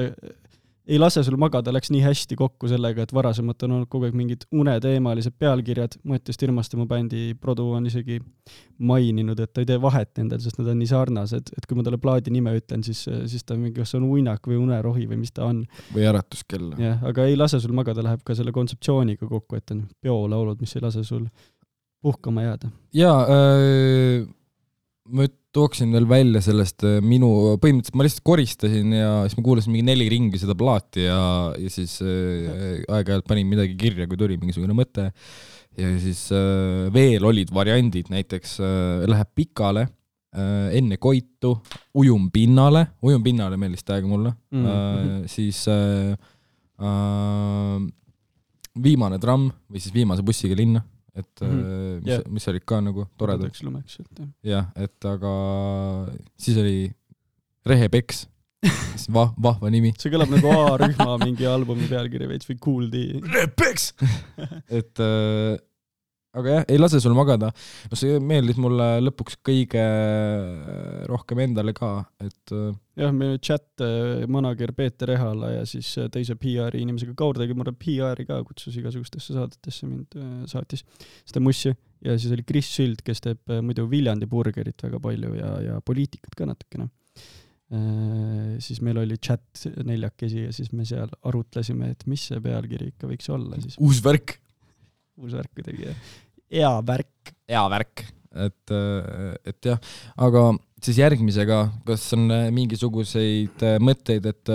ei lase sul magada, läks nii hästi kokku sellega, et varasemalt on olnud kogu aeg mingid uneteemalised pealkirjad. Mattias Tirmaste, mu bändi produ, on isegi maininud, et ta ei tee vahet nendel, sest nad on nii sarnased, et kui ma talle plaadi nime ütlen, siis ta mingi, kas on uinak või unerohi või mis ta on. Või äratuskell. Jah, aga ei lase sul magada, läheb ka selle kontseptsiooniga kokku, et on peolaulud, mis ei lase sul puhkama jääda. Jaa, ma tooksin veel välja sellest põhimõtteliselt ma lihtsalt koristasin ja siis ma kuulasin mingi 4 ringi seda plaati ja siis aeg-ajalt panin midagi kirja, kui tuli mingisugune mõte ja siis veel olid variandid, näiteks läheb pikale, enne koitu, ujum pinnale meeldis täiega mulle, siis viimane tramm või siis viimase bussiga linna. Et mis olid ka nagu toredad. Jah, et aga siis oli Rehepeks, vahva nimi. See kõlab nagu A-rühma mingi albumi pealkiri veits või Kuuldi. Rehepeks! Et aga jah, ei lase sul magada. No see meeldis mulle lõpuks kõige rohkem endale ka. Et jah, meil chat manager Peeter Ehala ja siis teise PR-i inimesega Kaur tegi mulle PR-i ka, kutsus igasugustesse saadetesse mind saatis seda mussi. Ja siis oli Chris Süld, kes teeb muidu Viljandi burgerit väga palju ja poliitikat ka natukene. Siis meil oli chat 4 ja siis me seal arutlesime, et mis see pealkiri ikka võiks olla. Siis. Uus värk kuidagi, hea värk. Et jah, aga siis järgmisega, kas on mingisuguseid mõtteid, et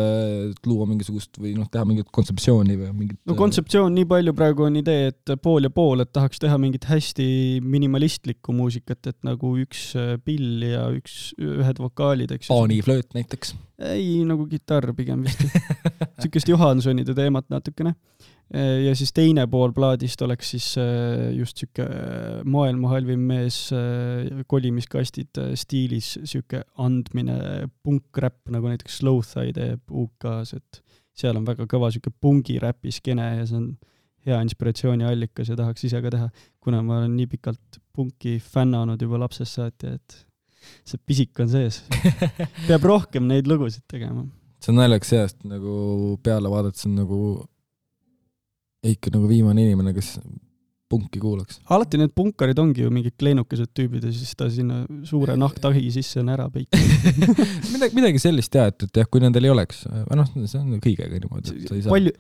luua mingisugust või teha mingit kontseptsiooni või mingit... No kontseptsioon nii palju praegu on idee, et pool ja pool, et tahaks teha mingit hästi minimalistlikku muusikat, et nagu üks pill ja ühed vokaalid, eks. Paaniflööt näiteks? Ei, nagu kitarr pigem vist. Sükest Johansonide teemat natukene. Ja siis teine pool plaadist oleks siis just süke maailma halvim mees kolimiskastid stiilis süke andmine punk-räpp, nagu näiteks Slow-Thigh teeb UK-s, et seal on väga kõva süke pungi-räpi skene ja see on hea inspiratsiooni allikas ja tahaks ise ka teha, kuna ma olen nii pikalt punki fännanud juba lapsest saati, et see pisik on sees. Peab rohkem neid lugusid tegema. See on naljaks seast, nagu peale vaadates on nagu ikka nagu viimane inimene, kes punki kuulaks. Alati need punkarid ongi ju mingid kleenukesed tüübid ja siis ta sinna suure nahktahi sisse on ära peikinud. midagi sellist et jah, kui nendel ei oleks, see on kõigega niimoodi. Palju,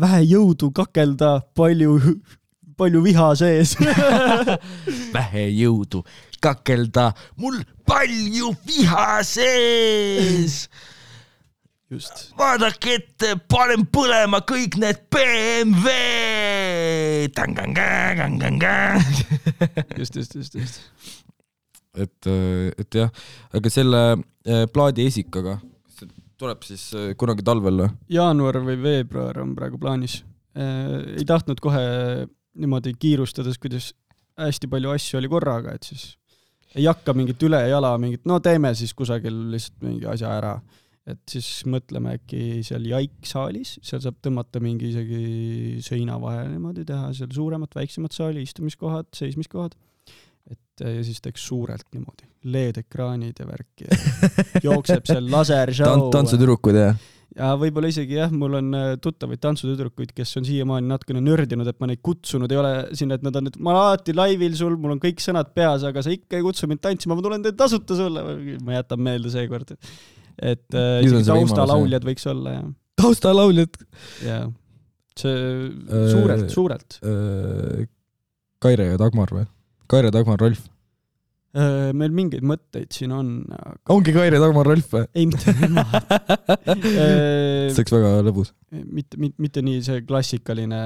vähe jõudu kakelda, palju viha sees. Vähe jõudu kakelda, mul palju viha sees. Just. Vaadake ette, panen põlema kõik need BMW. Just. Et jah, aga selle plaadi esikaga tuleb siis kunagi talvel? Jaanuar või veebruar on praegu plaanis. Ei tahtnud kohe niimoodi kiirustades, kuidas hästi palju asju oli korraga, et siis ei hakka mingit üle jala, teeme siis kusagil lihtsalt mingi asja ära. Et siis mõtleme äkki seal Jaik-saalis, seal saab tõmmata mingi isegi seina vahel niimoodi teha, seal suuremat, väiksemat saali, istumiskohad, seismiskohad. Ja siis teeks suurelt niimoodi, LED-ekraanid ja värki. Ja jookseb seal lasershow. Tantsutüdrukud, jah? Ja võib-olla isegi jah, mul on tuttavaid tantsutüdrukuid, kes on siiamaani natukene nördinud, et ma neid kutsunud ei ole sinna, et nad on, et ma alati laivil sul, mul on kõik sõnad peas, aga sa ikka ei kutsu mind tantsima, ma tulen teid tasuta sulle. Ma jätan meelde seekord. Et taustalauljad võiks olla. Ja. Taustalauljad? Jah. See suurelt. Kaire ja Dagmar või? Kaire, Dagmar, Rolf? Meil mingeid mõtteid siin on. Aga... Ongi Kaire, Dagmar, Rolf või? Ei, mitte nemad. See oleks väga lõbus. Mitte nii see klassikaline,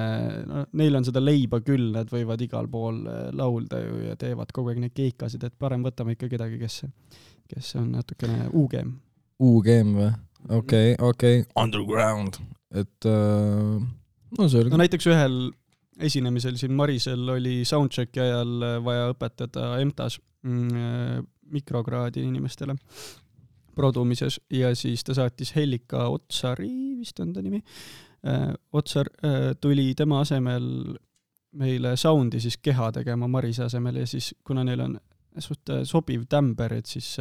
neil on seda leiba küll, nad võivad igal pool laulda ja teevad kogu aeg neid keikasid, et parem võtame ikka kedagi, kes on natukene UGM. UGM või? Okei. Underground. Et see oli... näiteks ühel esinemisel siin Marisel oli soundchecki ajal vaja õpetada EMTAs mikrokraadi inimestele produmises ja siis ta saatis Hellika Otsari, vist on ta nimi. Otsar tuli tema asemel meile soundi siis keha tegema Marise asemel ja siis kuna neil on sobiv tämber, et siis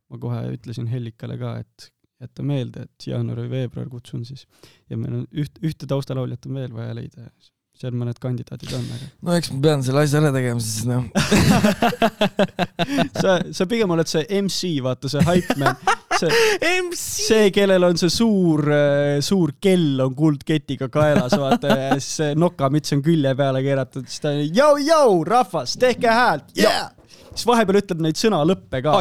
ma kohe ütlesin Hellikale ka, et jätta meelde, et jaanuar või veebruar kutsun siis. Ja meil on ühte taustalauljat on veel vaja leida. Seal mõned kandidaadid on. Aga... No eks ma pean selle asja ära tegema, siis no. sa pigem oled see MC, vaata see hype man. See, kellel on see suur kell on kuldketiga kaelas, vaata, ja see nokamits on külje peale keeratud. Siis ta on, jau, rahvas, tehke häält. Yeah! Siis vahepeal ütleb neid sõna lõppe ka.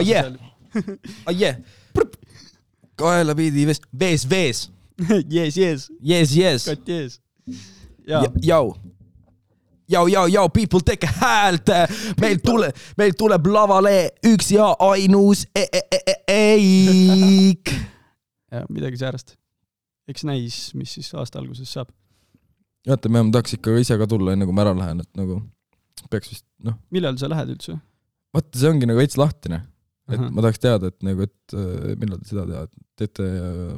Kaela pidi vees. Yes. Kat yes. Jau, people, tehke häält. Meil tuleb lavale üks ja ainus eik. Ja, midagi säärast. Eks näis, mis siis aasta alguses saab. Jätta, me tahaks ikka ise ka tulla, enne kui ma ära lähen, et nagu peaks vist, Millal sa lähed üldse? Vaata, see ongi nagu veits lahtine. Et ma tahaks teada, et nagu, et millal te seda teete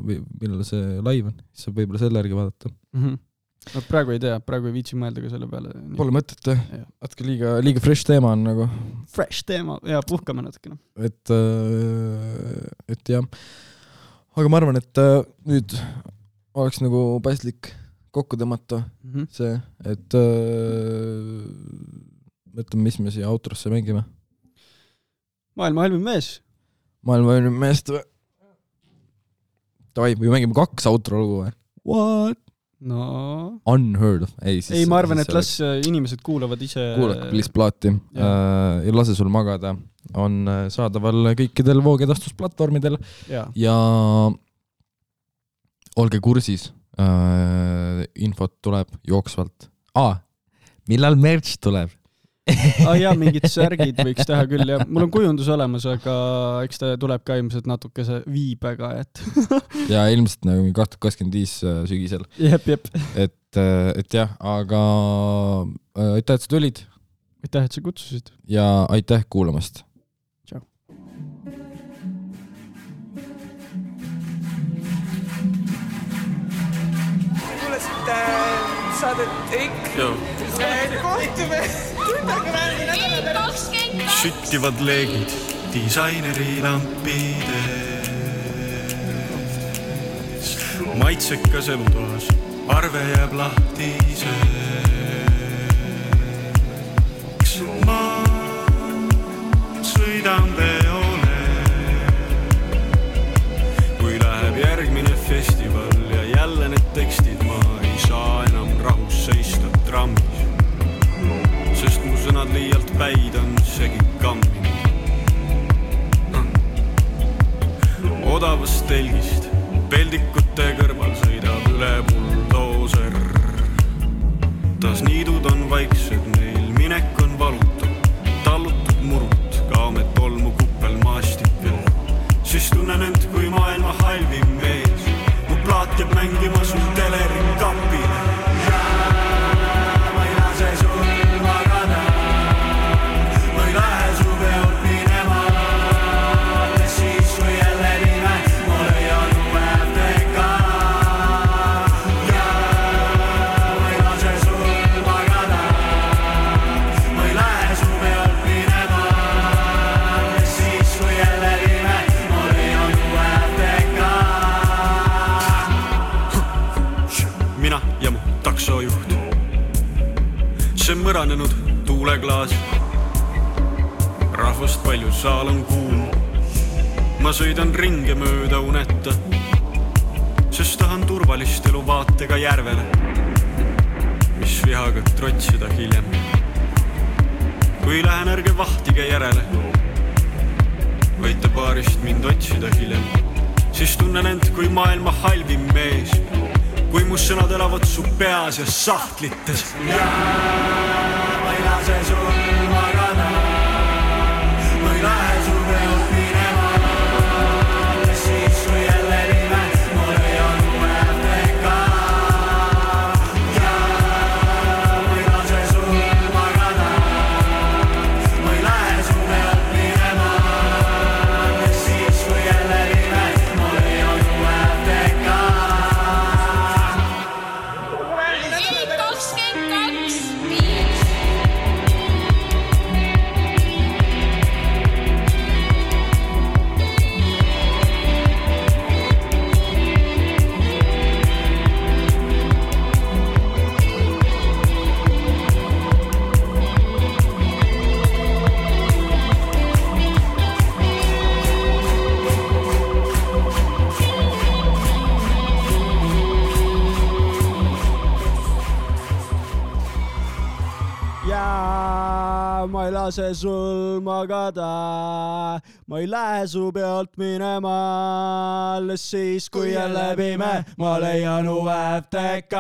või millal see live on. Siis saab võib-olla selle järgi vaadata. No, praegu ei tea, praegu ei viitsi mõelda ka selle peale. Pole mõtet, Atke liiga fresh teema on nagu. Fresh teema, ja puhkame natukene. Et jah. Aga ma arvan, et nüüd oleks nagu paslik kokku tõmmata see, et mõtleme, mis me siia outrosse mängime. Maailma halvim mees. Davai, või mängime 2 outro lugu või? What? No. Unheard of. Ei, ma arvan, et las inimesed kuulavad ise. Kuulake please plaati ja lase sul magada. On saadaval kõikidel voogedastusplatvormidel ja olge kursis. Infot tuleb jooksvalt. Millal merch tuleb? Mingid särgid võiks teha küll ja mul on kujundus olemas, aga eks ta tuleb ka ilmselt natukese viibega, et ja ilmselt nagu 2025 sügisel. Jep. Et jah, aga aitäh, et sa tulid. Aitäh, et sa kutsusid. Ja aitäh kuulamast. Tšau. Kuulasite saadet Eik. Kohtume. Süttivad leegid disaineri lampides. Maitsekas elutoas, arve jääb lahtiseks. sõidan peole. Kui läheb järgmine festival ja jälle need tekstid, ma ei saa enam rahus seista trammis, sest mu sõnad liialt päid on segi kamminud. Odavast telgist peldikute kõrval sõidab üle buldooser. Tas niidud on vaiksed, neil minek on valutu, tallutud murut, kaame tolmu kuppel maastikel. Siis tunnen end kui maailma halvim mees, mu plaat jääb mängima sul teleri kapile. Ma ei lase sul magada, ma ei lähe su peolt minema. Siis kui jälle nime, ma leian uue FTK. Ma ei lase sul magada, ma ei lähe su peolt minema. Siis kui jälle nime, ma leian uue FTK. Mina ja mu taksojuht, see mõranenud tuuleklaas. Rahvast palju, saal on kuum. Ma sõidan ringe mööda uneta, sest tahan turvalist elu vaatega järvele, mis vihaga trotsida hiljem. Kui lähen, ärge vahtige järele, võite baarist mind otsida hiljem. Siis tunnen end kui maailma halvim mees, kui mu sõnad elavad su peas ja sahtlites. Ma ei lase sul magada, ma ei lähe su peolt minema. Siis kui jälle nime, ma leian uue FTK. Ma ei lase sul magada, ma ei lähe su peolt minema. Siis kui jälle nime, ma leian uue FTK. 22.5 ma ei lase sul magada, ma ei lähe su pealt minema. Alles siis, kui jälle pime, ma leian uue FTK.